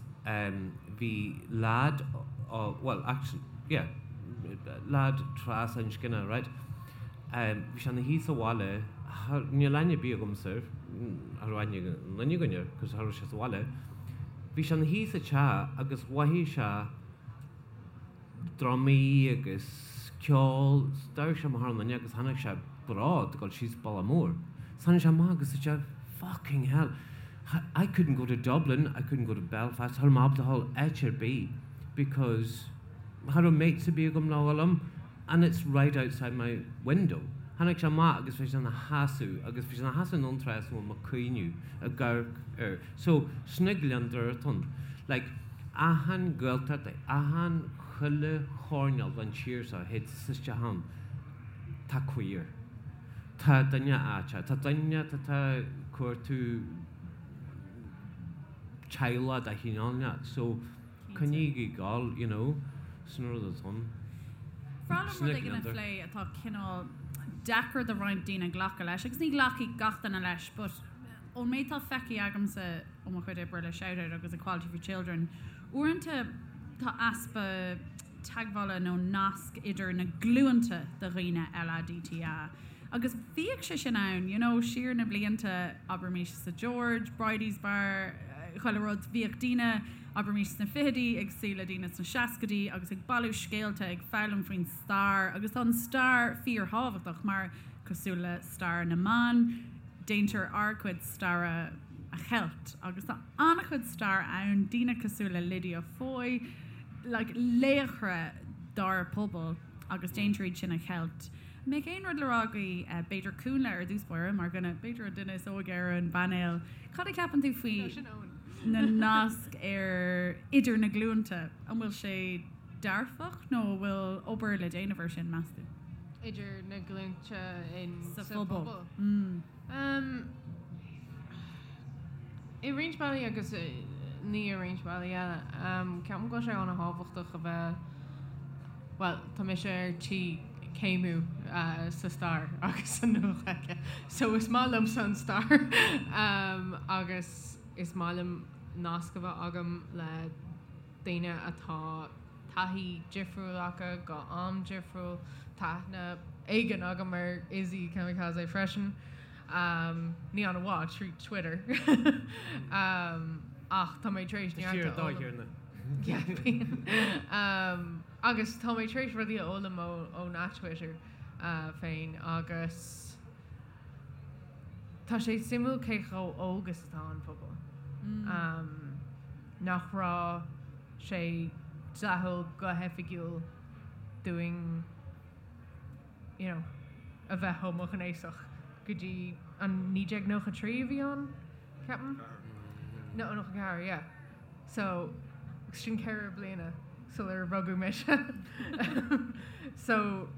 bhí leaid, bhuel, actually, yeah, leaid trasinscne, right, bhí sé ina shuí sa bhaile, níl aithne ar bith agamsa air, cha raibh aithne ag aon duine againn air, cos cha raibh sé sa bhaile, bhí sé ina shuí sa teach agus mhothaigh sé drumaí agus ceol, d'amharc sé amach ar an fhuinneog agus chonaic sé bród ag dul síos bealach mór. So tháinig sé amach agus dúirt sé, fucking hell, I couldn't go to Dublin, I couldn't go to Belfast, cha raibh mé ábalta dhul áit ar bith because cha raibh mates ar bith agam le dhul liom and it's right outside my window. Tháinig sé amach agus bhí sé ina sheasamh agus bhí sé ina sheasamh in an trás a bhfuil mé ag cuimhneamh ag amharc air. So, sin gliondar atá ann. Like, achan Ghaeltacht, achan chuile choirnéal den tír seo, théid tusa isteach ann, tá queer. Tá duine aiteach, tá duine atá ag cuartú teaghlach de chineál inteacht. So, coinnígí ag gabháil, you know, sin an rud atá ann. Bhreá liom rud éigin a phlé atá cineál deacair do roinnt daoine glacadh leis, agus ní ghlacfaidh gach duine leis, but ón méid atá feicthe agamsa ó mo chuid oibre le Shout Out agus Equality for Children, uaireanta tá easpa teagmhála nó nasc idir na glúnta de dhaoine LADTA. Agus bhíodh sé sin ann, you know, siar na blianta, abraimis sa George, Bridie's Bar, chuile rud, bhíodh daoine, abraimis sna fichidí ag suí le daoine sna seascaidí agus ag bailiú scéalta, ag foghlaim faoin stair agus tá an stair fíorthábhachtach mar, cosúil le stair na mban, déantar ár gcuid staire a cheilt agus tá an-chuid stair ann, daoine cosúil le Lydia Foy, like laochra dár bpobal agus déantar iad sin a cheilt. An mbeadh aon rud le rá agaibh, b'fhéidir Cúnla ar dtús báire, mar dhuine, b'fhéidir an duine is óige ar an bpainéal, cad a cheapann tú faoi na naisc ar idir na glúnta? An bhfuil sé dearfach nó an bhfuil obair le déanamh ar sin, meas tú? Idir na glúnta in sa phobal. Um, I roinnt bealaí agus ní i roinnt bealaí eile. Um, ceapaim go bhfuil sé an-thábhachtach a bheith, bhuel, tá mise ar tí céimiú uh, sa stair agus sa Nua-Ghaeilge. So is maith liomsa an stair um, agus is maith liom nasc a bheith agam le daoine atá taithí difriúil acu go am difriúil. Tá aithne éigin agam ar Izzy Kamikaze freisin. Ní an-mhaith, trí Twitter. Ach tá mé tar éis neart a fhoghlaim. Agus tá mé tar éis rudaí a fhoghlaim ón Twitter féin agus tá sé suimiúil cé chomh óg is atá an pobal. Nach raibh sé dleathúil go hoifigiúil dúinn you know a bheith homaighnéasach go dtí an 1993 a bhí ann, ceapaim? No, 94, yeah. So, sin 4 bliana sular rugadh mise. So,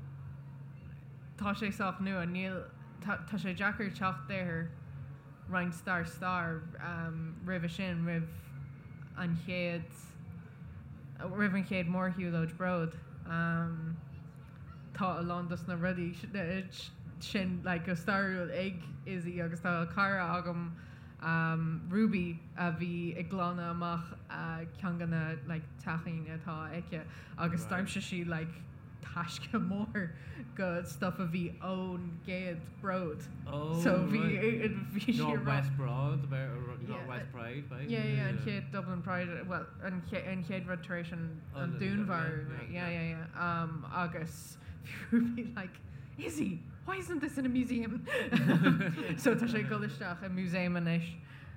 tá sé sách nua, níl, tá, tá sé deacair teacht ar roinnt dár stair roimhe sin, roimh an chéad, roimh an chéad mórshiúlóid Bród. Tá a lán dos na rudaí sin like go stairiúil ag Izzy agus tá cara agam Ruby a bhí ag glanadh amach ceann de na like teachín atá aici agus d'aimsigh sí like. taisce mór go stuff a bhí ón gcéad Bród. Oh, So bhí right. bhí sí North rá- West Broad, about Yeah, North West Pride, right? Yeah, yeah, an chéad Dublin Pride, well, an ché- an chéad rud tar éis an Oh, an the- dúnmharú, yeah, right? yeah, Yeah, yeah, yeah. Agus bhí Ruby like, Izzy, why isn't this in a museum? So tá sé ag dul isteach i museum anois,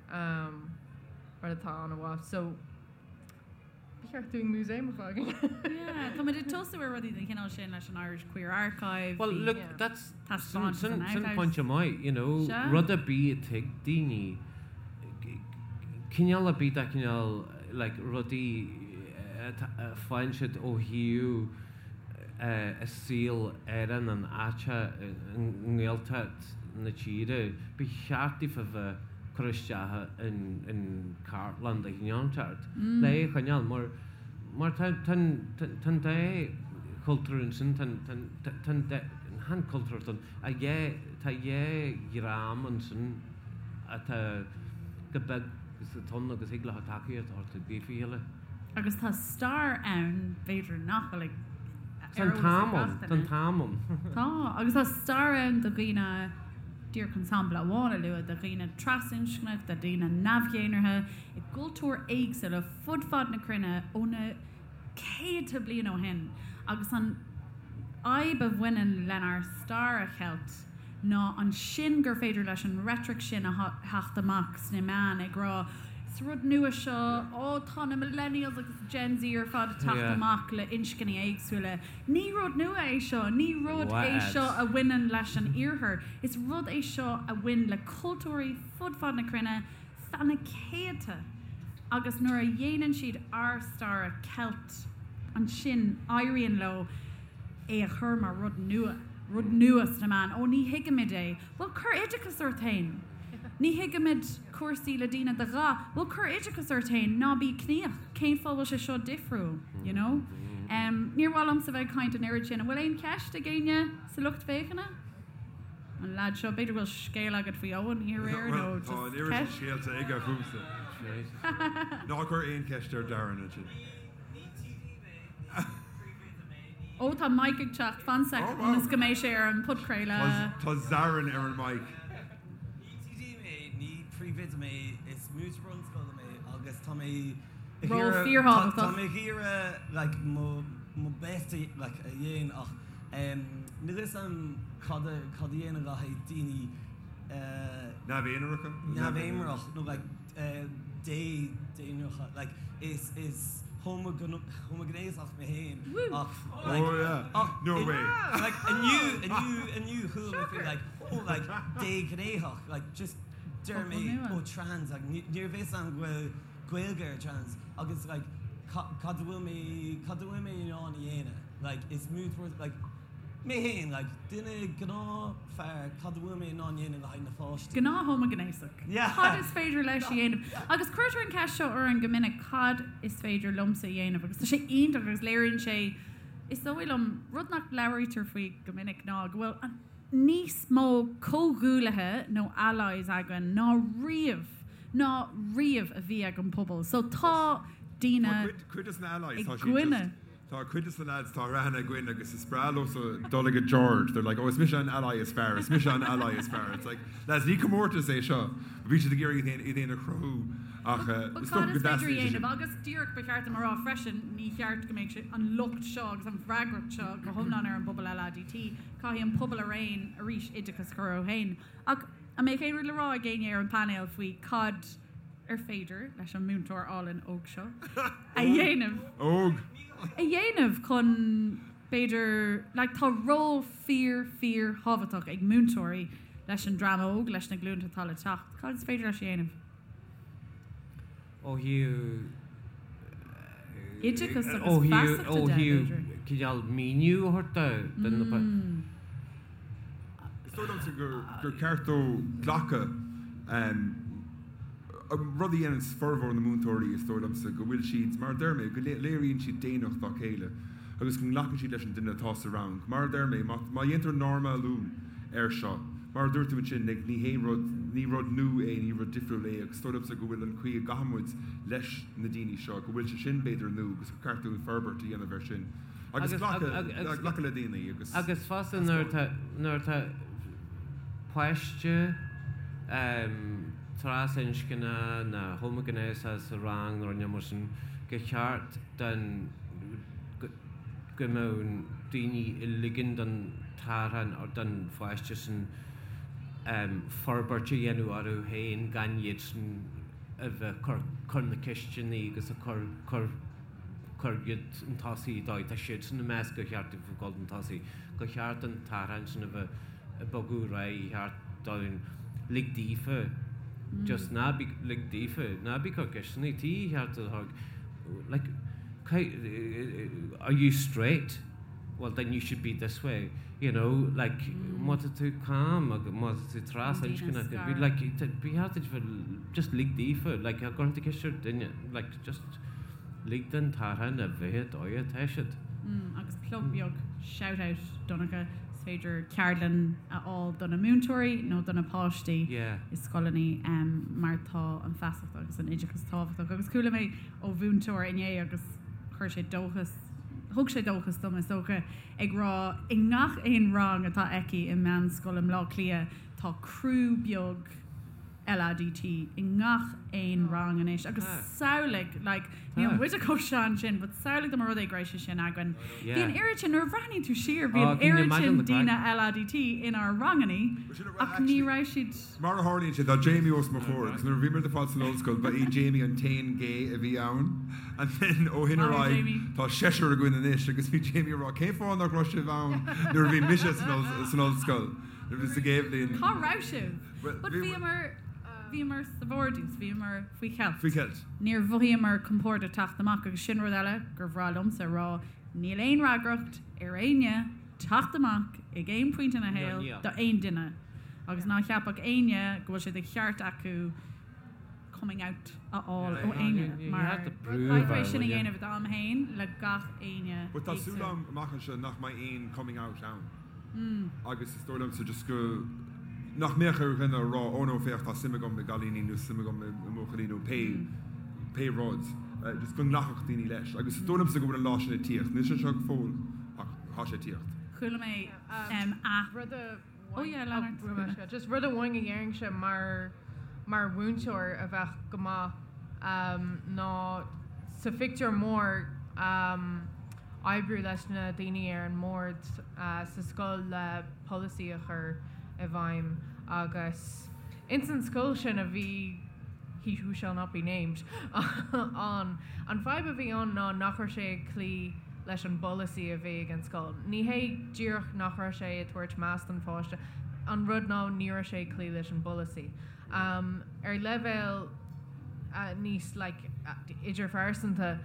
mar atá an-mhaith. So ba cheart dúinn museum a fhágáil. Yeah, tá muid ag tosú ar rudaí den chineál sin leis an Irish Queer Archive. Well, bhí look, Yeah. that's taispeántas sin san sin archives. pointe maith, you know, Sea. rud ar bith a thuig daoine, cineál ar bith de chineál like rudaí a faigheann siad ó thaobh a saol ar an áit i nGaeltacht na tíre, ba cheart daofa bheith cur isteach in cartlann de chineál inteacht le é a choinneáil mar mar tá tá tá an dá chultúr ansin tá tá tá an dá chan cultúr tá dhá tá dhá dhream ansin atá go beag sa tonn agus thig leo tacaíocht a thabhairt daofa chéile. Agus tá stair ann, b'fhéidir nach bhfuil ag Tá an ar eolas ag t-am gach ann, tá an duine. t-am ann. Tá, agus tá stair ann do dhaoine, díreach chun sampla amháin a lua, do dhaoine trasinscneach, do dhaoine neamh-dhénártha, i gcultúir éagsúla fud fad na cruinne ó na céadta bliain ó shin. Agus an fhadhb a bhaineann lenár stair a cheilt ná ansin gur féidir leis an reitric sin a theacht amach sna meáin ag rá is rud nua seo, ó tá na millennials agus Gen Z ar fad ag teacht amach le inscní éagsúla. Ní rud nua é seo, ní rud é seo a bhaineann leis an iarthar, is rud é seo a bhain le cultúirí fud fad na cruinne feadh na céadta agus nuair a dhéanann siad ár stair a cheilt ansin éiríonn leo é a chur mar rud nua, rud nua sna meáin. Ó, ní thuigimid é. Bhuel, cuir oideachas ort féin. Ní thuigimid cúrsaí le daoine de dhath. Bhuel, cuir oideachas ort féin, ná bí ciníoch. Cén fáth bhfuil sé seo difriúil, you know? Níor mhaith liomsa bheith ag caint an oiread sin. An bhfuil aon cheist ag éinne sa lucht féachana? An leaid seo, b'fhéidir go bhfuil scéal agat faoi Eoin aréir nó Bhuel, tá an just oiread sin ceist? scéalta aige fúmsa. Ná cuir aon cheist ar Darren ansin. Ní TD mé, ní príomhoide mé, ní. Ó, tá mic ag teacht, fan sec Oh, wow. ionas go mbeidh sé ar an podchraoladh. Tá Darren ar an mic. Ní TD mé, ní príomhoide mé, is múinteoir bunscoile mé agus tá mé ag Ról iarraidh, tá fíorthábhachtach. tá mé ag iarraidh like mo mo best a like a dhéanamh ach em níl fhios a'm cad a cad a dhéanamh le haghaidh daoine eh Neamh-aonaracha? neamh-aonarach nó like eh dé dénártha like is is homaighnéasach mé féin ach like Oh yeah. ach No in way. like inniu inniu inniu chuala mé faoi like oh like déghnéasach like just deir Focal mé nua. oh trans like ní ní raibh fhios a'm go bhfuil Gaeilge ar trans agus like ca- cad a bhfuil mé cad a bhfuil mé in ann a dhéanamh like is múinteoir like Mé féin, like, duine gnáthfhear, cad a bhfuil mé in ann dhéanamh le haghaidh na pháistí? Gnáth-homaighnéasach. Yeah. Cad is féidir leis a dhéanamh? Agus cuirtear an ceist seo orainn go minic, cad is féidir liomsa a dhéanamh? Agus tá sé iontach agus léiríonn sé, is dóigh liom, rud nach labhraítear faoi go minic ná go bhfuil níos mó comhghuaillithe nó allies againn ná riamh, ná riamh a bhí ag an pobal. So tá daoine Tá cuid, cuid des na allies, i tá siad gcoinne. just, Tá cuid de na lads, tá aithne againn agus is breá leosa dul ag George, they're like, oh is mise an ally is fearr, is mise an ally is fearr. It's like, lads, ní comórtas é seo. Bhí siad ag iarraidh iad féin a chruthú ach But is cad dócha go is féidir a dteastaíonn sé sin. dhéanamh? Agus díreach ba cheart dom a rá freisin, ní cheart go mbeadh sé, an locht seo agus an bhfreagracht seo go hiomlán ar an bpobal LADT. Caithfidh an pobal araon arís oideachas a chur orthu féin. Ach an mbeadh aon rud le rá ag éinne ar an bpainéal faoi cad ar féidir leis an múinteoir álainn óg seo a dhéanamh? Óg! a dhéanamh chun, b'fhéidir, like tá ról fíor, fíor thábhachtach ag múinteoirí leis an dream óg, leis na glúnta atá le teacht. Cad is féidir leis a dhéanamh? Ó thaobh Oideachas agus ó thaobh feasachta ó de, thaobh b'fhéidir. cineál míniú a thabhairt do na Is dóigh liomsa gur ceart dó glacadh rud a dhéanann formhór na múinteoirí, is dóigh liomsa, go bhfuil siad, mar a deir mé, go léiríonn siad daonnacht dá chéile agus go nglacann siad leis an duine atá sa rang. Mar a deir mé, má dhéantar normalú air seo, mar a dúirt tú ansin, ní hé rud, ní rud nua é, ní rud difriúil é agus is dóigh liomsa go bhfuil an chaoi a gcaithfidh muid leis na daoine seo, go bhfuil sé sin, b'fhéidir, nua agus gur ceart dúinn forbairt a dhéanamh air sin. Agus glacadh le daoine agus. Agus fosta nuair atá, nuair atá páiste trasinscne nó homaighnéasach sa rang nó rud mar sin, gur cheart don, go mbeadh daoine ag ligean don t-arán don pháiste sin forbairt a dhéanamh orthu féin gan iadsan a bheith ag cur cur na ceisteanna agus ag cur cur cur iad chun tosaigh dóigh tá siadsan ag meas gur cheart dóibh dul chun tosaigh gur cheart an t-arán sin a bheith ag bogadh ar aghaidh cheart dóibh lig daofa just ná bí lig daofa ná bí ag cur ceisteanna tí cheart a like are you straight? Well then you should be this way, you know, like má tá tú cam agus má tá tú trasinscneach, be like ba cheart duit bheith just lig daofa, like tá cuireann tú ceist ar duine, like just lig don t-arán a bheith an dóigh atá siad. Agus plug beag, shout out Donncha, is féidir ceardlann a fháil do na múinteoirí nó do na páistí i scoileanna mar tá an feasacht agus an oideachas tábhachtach. Agus chuala mé ó mhúinteoir inné agus chuir sé dóchas, thug sé dóchas dom is dócha, ag rá i ngach aon rang atá aici i meánscoil i mBleá Cliath tá criú beag LADT i ngach aon rang anois agus samhlaigh, like, níl muide chomh sean sin but samhlaigh dá mba rud é go raibh sé sin againn. Bhí an oiread sin, nuair a bhreathnaíonn tú siar, bhí an oiread sin daoine LADT inár rangannaí ach ní raibh siad. Mar a tharlaíonn sé, tá Jamie os mo chomhair agus nuair a bhí muid ar fad san ollscoil, ba é Jamie an t-aon gay a bhí ann. And then ó shin ar aghaidh, tá seisear againn anois agus bhí Jamie ag rá, cén fáth nach raibh sibh ann nuair a bhí mise san ollscoil, nuair a bhí sa gcéad bhliain. Cá raibh sibh? But bhíomar, bhíomar sa vardrús, bhíomar faoi cheilt. Faoi cheilt. Níor mhothaíomar compordach teacht amach agus sin rud eile gur bhreá liomsa a rá, níl aon fhreagracht ar éinne teacht amach ag aon phointe ina shaol do aon duine agus ná ceapadh éinne go bhfuil sé de cheart acu coming out a fháil ó éinne mar caithfidh tú é sin a dhéanamh i d'am féin le gach éinne But tá súil agam amach anseo nach mbeidh aon coming out ann agus is dóigh liomsa just go nach mbeadh ar dhuine a rá oh no féach tá suim agam i gcailíní nó suim agam i mbuachaillí nó pé pé rud just go nglacfadh daoine leis agus is dóigh liomsa go bhfuil an lá sin ag tíocht. Níl sé anseo go fóill ach tá sé ag tíocht. Chuala mé a. Rud a Oh yeah, lean ort. Just rud amháin a dhéarfainnse mar mar mhúinteoir a bheadh go maith ná sa phictiúr mór oibriú leis na daoine ar an mbord sa scoil le polasaí a chur i bhfeidhm agus ins an scoil sin a bhí he who shall not be named ann. An fadhb a bhí ann ná nach raibh sé ag cloí leis an bpolasaí a bhí ag an scoil. Ní hé díreach nach raibh sé ag tabhairt meas don pháiste, an rud ná ní raibh sé ag cloí leis an bpolasaí. Ar leibhéal níos like idirphearsanta,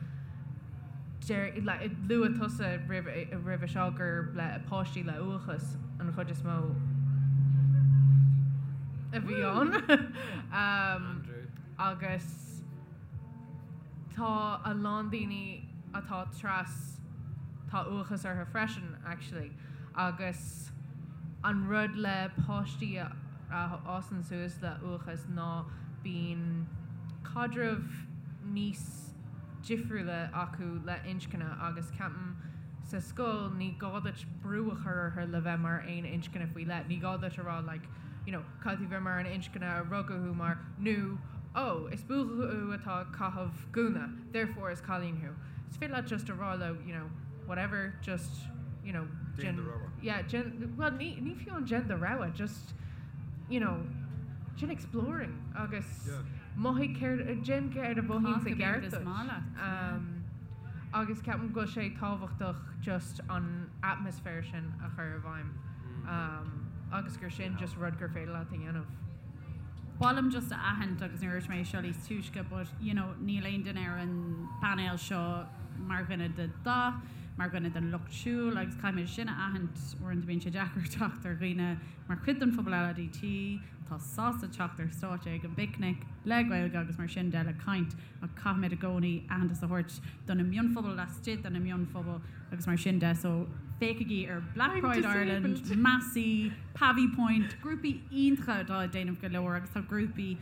deir, luaigh tusa roimhe seo gur le páistí le uathachas an chuid is mó a bhí ann agus tá a lán daoine atá tras, tá uathachas orthu freisin actually agus an rud le páistí a fhásann suas le uathachas ná bíonn caidreamh níos difriúla acu le inscne agus ceapaim sa scoil ní gá duit brú a chur orthu le bheith mar aon inscne faoi leith, ní gá duit a rá like you know caithfidh tú bheith mar an inscne a rugadh thú mar nó oh is buachaill thú atá ag caitheamh gúna therefore is cailín thú. Is féidir leat just a rá leo you know whatever just you know Déan do rogha. Yeah déan well ní ní fiú an déan do rogha just you know déan exploring agus Yeah. Mothaigh céard, déan céard a mhothaíonn i ceart gceart is duit. maith leat. Agus ceapaim go bhfuil sé tábhachtach just an atmaisféar sin a chur i bhfeidhm agus gur sin just rud gur féidir leat a dhéanamh. Ba mhaith liom just a aithint agus níor dhúirt mé seo níos túisce but you know níl aon duine ar an bpainéal seo mar dhuine de dhath, mar dhuine den lucht siúil agus caithfimid sin a aithint, uaireanta bíonn sé deacair teacht ar dhaoine mar chuid den phobal LADT, atá sásta teacht ar stáitse ag an bPicnic le Gaeilge agus mar sin de le caint ach caithfimid i gcónaí aitheantas a thabhairt do na mionphobail laistigh de na mionphobail agus mar sin de so féachaigí ar Black I'm Pride Ireland, disabled. Massey, Pavee Point, grúpaí iontacha atá ag déanamh go leor agus tá grúpaí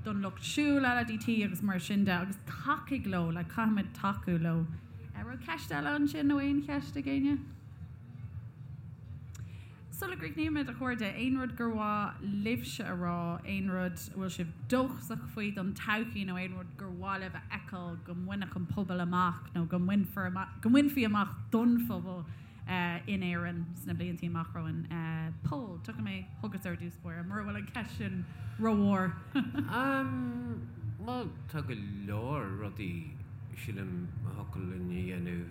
don lucht siúil LADT agus mar sin de agus tacaigh leo, like caithfimid tacú leo. An raibh ceist eile ansin nó aon cheist ag éinne? Sula gcríochnaímid, a chairde, aon rud gur mhaith libhse a rá, aon rud a bhfuil sibh dóchasach faoi don todhchaí nó aon rud gur mhaith libh a fheiceáil go mbainfeadh an pobal amach nó go mbainfear amach, go mbainfí amach don phobal in Éirinn sna blianta amach romhainn? Pól, tiocfaidh mé chugatsa ar dtús báire, mura bhfuil an cheist sin rómhór. Bhuel, tá go leor rudaí, sílim, a thiocfadh linn a dhéanamh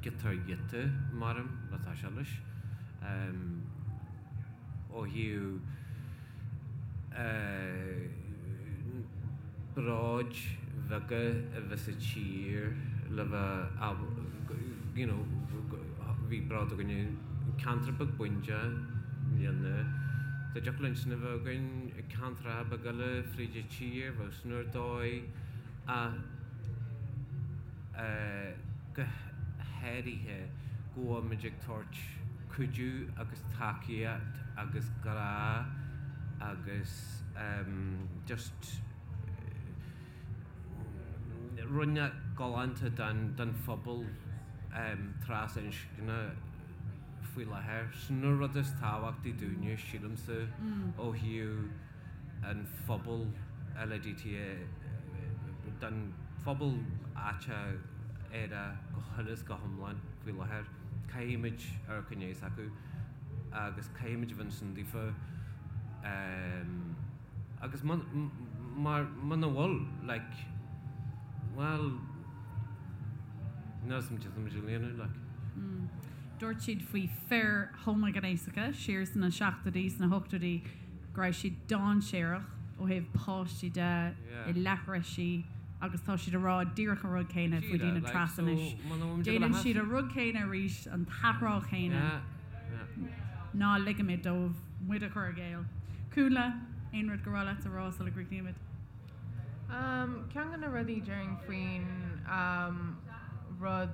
giota ar ghiota, maram, le toiseacht leis. Ó thaobh bróid bheaga a bheith sa tír le bheith, you know, bhí bród againn i gceantar beag Bundea i mbliana, dá dtiocfadh linn sin a bheith againn i gceantracha beaga eile fríd an tír, bheadh sin ar dóigh ach go háirithe go bhfuil muid ag tabhairt cuidiú agus tacaíocht agus grá agus just rud galánta don phobal trasinscne faoi láthair. Sin an rud is tábhachtaí dúinne, sílimse, ó thaobh an phobal LADTA, don phobal aiteach aerach go huile is go hiomlán faoi láthair. Caithfimid amharc i ndiaidh s'acu agus caithfimid a bheith ansin daofa agus mar muna bhfuil, like, bhuel, níl a fhios agam cad tá muid a dhéanamh, like. Dúirt siad faoi fir homaighnéasacha siar sna seachtóidí, sna hochtóidí, go raibh siad dainséarach ó thaobh páistí de i leathraisí agus tá siad ag rá díreach an rud céanna faoi daoine tras anois. Déanann siad an rud céanna arís, an t-athrá céanna. Ná ligimid dóibh muid a chur i gcéill. Cúnla, aon rud gur mhaith leat a rá sula gcríochnaímid? Ceann de na rudaí déarfainn faoin rud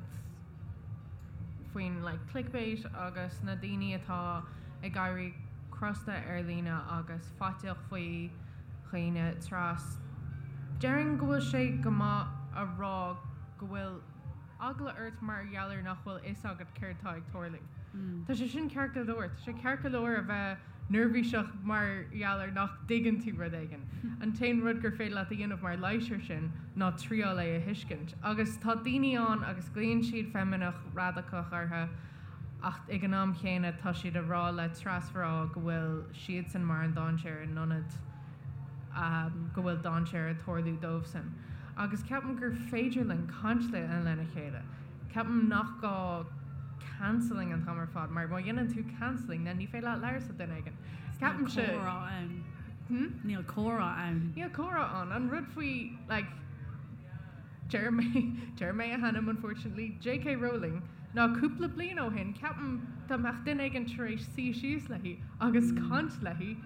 faoin like clickbait agus na daoine atá ag éirí crosta ar líne agus faiteach faoi dhaoine tras, déarfainn go bhfuil sé go maith a rá go bhfuil eagla ort mar gheall ar nach bhfuil fhios agat céard tá ag tarlú. Tá sé sin ceart go leor. Tá sé ceart go leor a bheith neirbhíseach mar gheall ar nach dtuigeann tú rud éigin. An t-aon rud gur féidir leat a dhéanamh mar leigheas air sin ná triáil é a thuiscint. Agus tá daoine ann agus glaonn siad feimineach radacach orthu ach ag an am chéanna tá siad a rá le trasmhná go bhfuil siadsan mar an dainséar in ionad go bhfuil dainséar ag tarlú dóibhsan. Agus ceapaim gur féidir linn caint lena chéile. Ceapaim nach gá cancelling an t-am ar fad, mar má dhéanann tú cancelling, then ní féidir leat labhairt le duine éigin. Ceapaimse. Níl comhrá ann. Hmm? Níl comhrá ann. Níl comhrá ann. An rud faoi, like, deir mé, deir mé a hainm unfortunately, J.K. Rowling, ná cúpla bliain ó shin, ceapaim dá mbeadh duine éigin tar éis suí síos léi agus caint léi,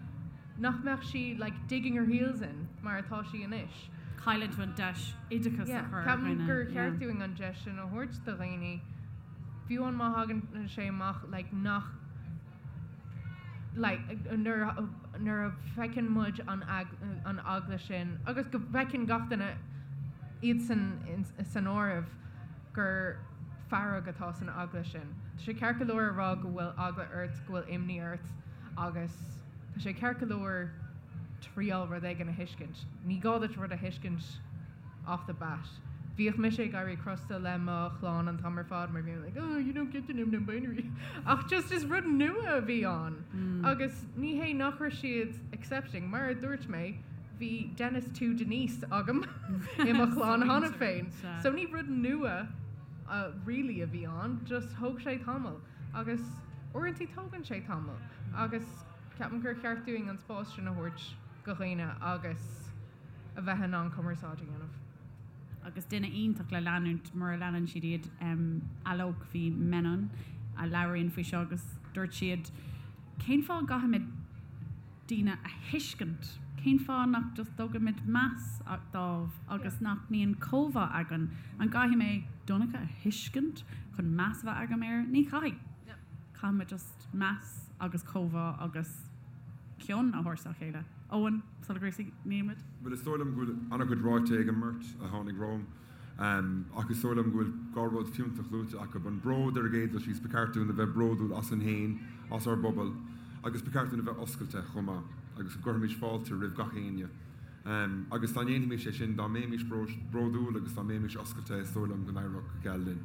nach mbeadh sí like digging her heels in mar atá sí anois. Cailleann tú an deis oideachas a chur ar Ceapaim dhaoine. gur cheart dúinn an deis sin a thabhairt do dhaoine, fiú amháin má thagann sé amach like nach like nuair nuair a fheiceann muid an an eagla sin agus go bhfeiceann gach duine iadsan san áireamh gur fearg atá san eagla sin. Tá sé ceart go leor a rá go bhfuil eagla ort, go bhfuil imní ort agus tá sé ceart go leor triail rud éigin a thuiscint. Ní gá duit rud a thuiscint off the bat. Bhíodh mise ag éirí crosta le mo chlann an t-am ar fad mar bhí mé like oh you don't get to know non-binary ach just is rud nua a bhí ann agus ní hé nach raibh siad accepting mar a dúirt mé bhí Dennis to Denise agam i mo chlann cheana féin so ní rud nua uh, really a bhí ann just thóg sé tamall agus uaireanta tógann sé tamall agus Ceapaim gur cheart dúinn an spás sin a thabhairt do dhaoine agus a bheith in ann cumarsáid a dhéanamh. Agus duine iontach le leanúint mura leanann siad iad, Alok V. Menon a labhraíonn faoi seo agus dúirt siad, cén fáth a gcaithfimid daoine a thuiscint? Cén fáth nach just dtugaimid meas dóibh agus nach mbíonn comhbhá againn? An gcaithfidh mé Donncha a thuiscint chun meas a bheith agam air? Ní chaithfidh. Caithfimid just. meas agus comhbhá agus cion a thabhairt dá chéile. Eoin, sula gcríochnaímid? Bhuel, is dóigh liom go bhfuil an-chuid ráite ag an mbeirt a tháinig romham. Ach is dóigh liom go bhfuil dhá rud fiúntach luaite acu, an bród ar an gcéad dul síos, ba cheart dúinn a bheith bródúil asainn féin, as ár bpobal, agus ba cheart dúinn a bheith oscailte chomh maith agus go gcuirfimis fáilte roimh gach éinne. Agus dá ndéanfaimis é sin, dá mbeimis bródúil agus dá mbeimis oscailte, is dóigh liom go n-éireodh go geal linn.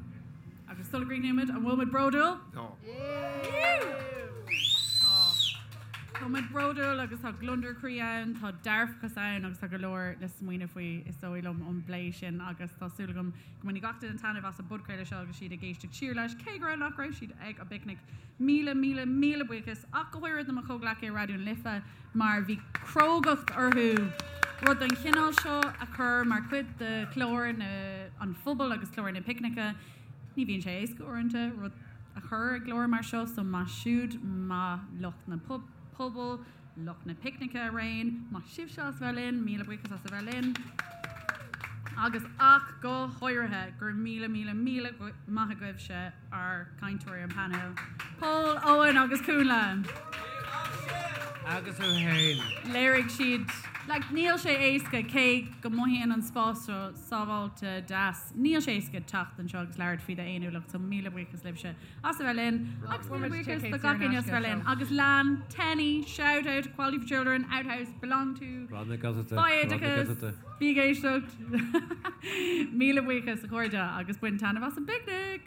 Agus sula gcríochnaímid, an bhfuil muid bródúil? Tá. Tá muid bródúil agus tá gliondar croí ann, tá dearfachas ann agus tá go leor le smaoineamh faoi is dóigh liom ón bplé sin agus tá súil agam go mbainfidh gach duine taitneamh as an bpodchraoladh seo agus siad ag éisteacht siar leis, cé go raibh nach raibh siad ag an bpicnic. Míle, míle, míle buíochas ach go háirithe do mo chomhghleacaithe i Raidió na Life mar bhí crógacht orthu rud den chineál seo a chur mar chuid de chlár an phobail agus clár na picnice. Ní bhíonn sé éasca uaireanta rud a chur i gclár mar seo so maith siúd, maith lucht na pobal, lucht na picnice araon, maith sibhse as a bheith linn, míle buíochas as a bheith linn agus ach go háirithe go raibh míle míle míle maith agaibhse ár gcainteoirí an painéil, Pól, Eoin agus Cúnla. Agus tú féin. Léirigh siad, like, níl sé éasca cé go mothaíonn an spás seo sábháilte deas, Níl sé éasca teacht anseo agus labhairt faoi d'fhéiniúlacht so míle buíochas libhse as a bheith linn agus míle buíochas do gach éinne as a bheith linn agus lean Tenny, shout out, Equality for Children, Outhouse, Belong To, Faigh Oideachas, bí ag éisteacht. Míle buíochas a chairde agus bain taitneamh as an bpicnic!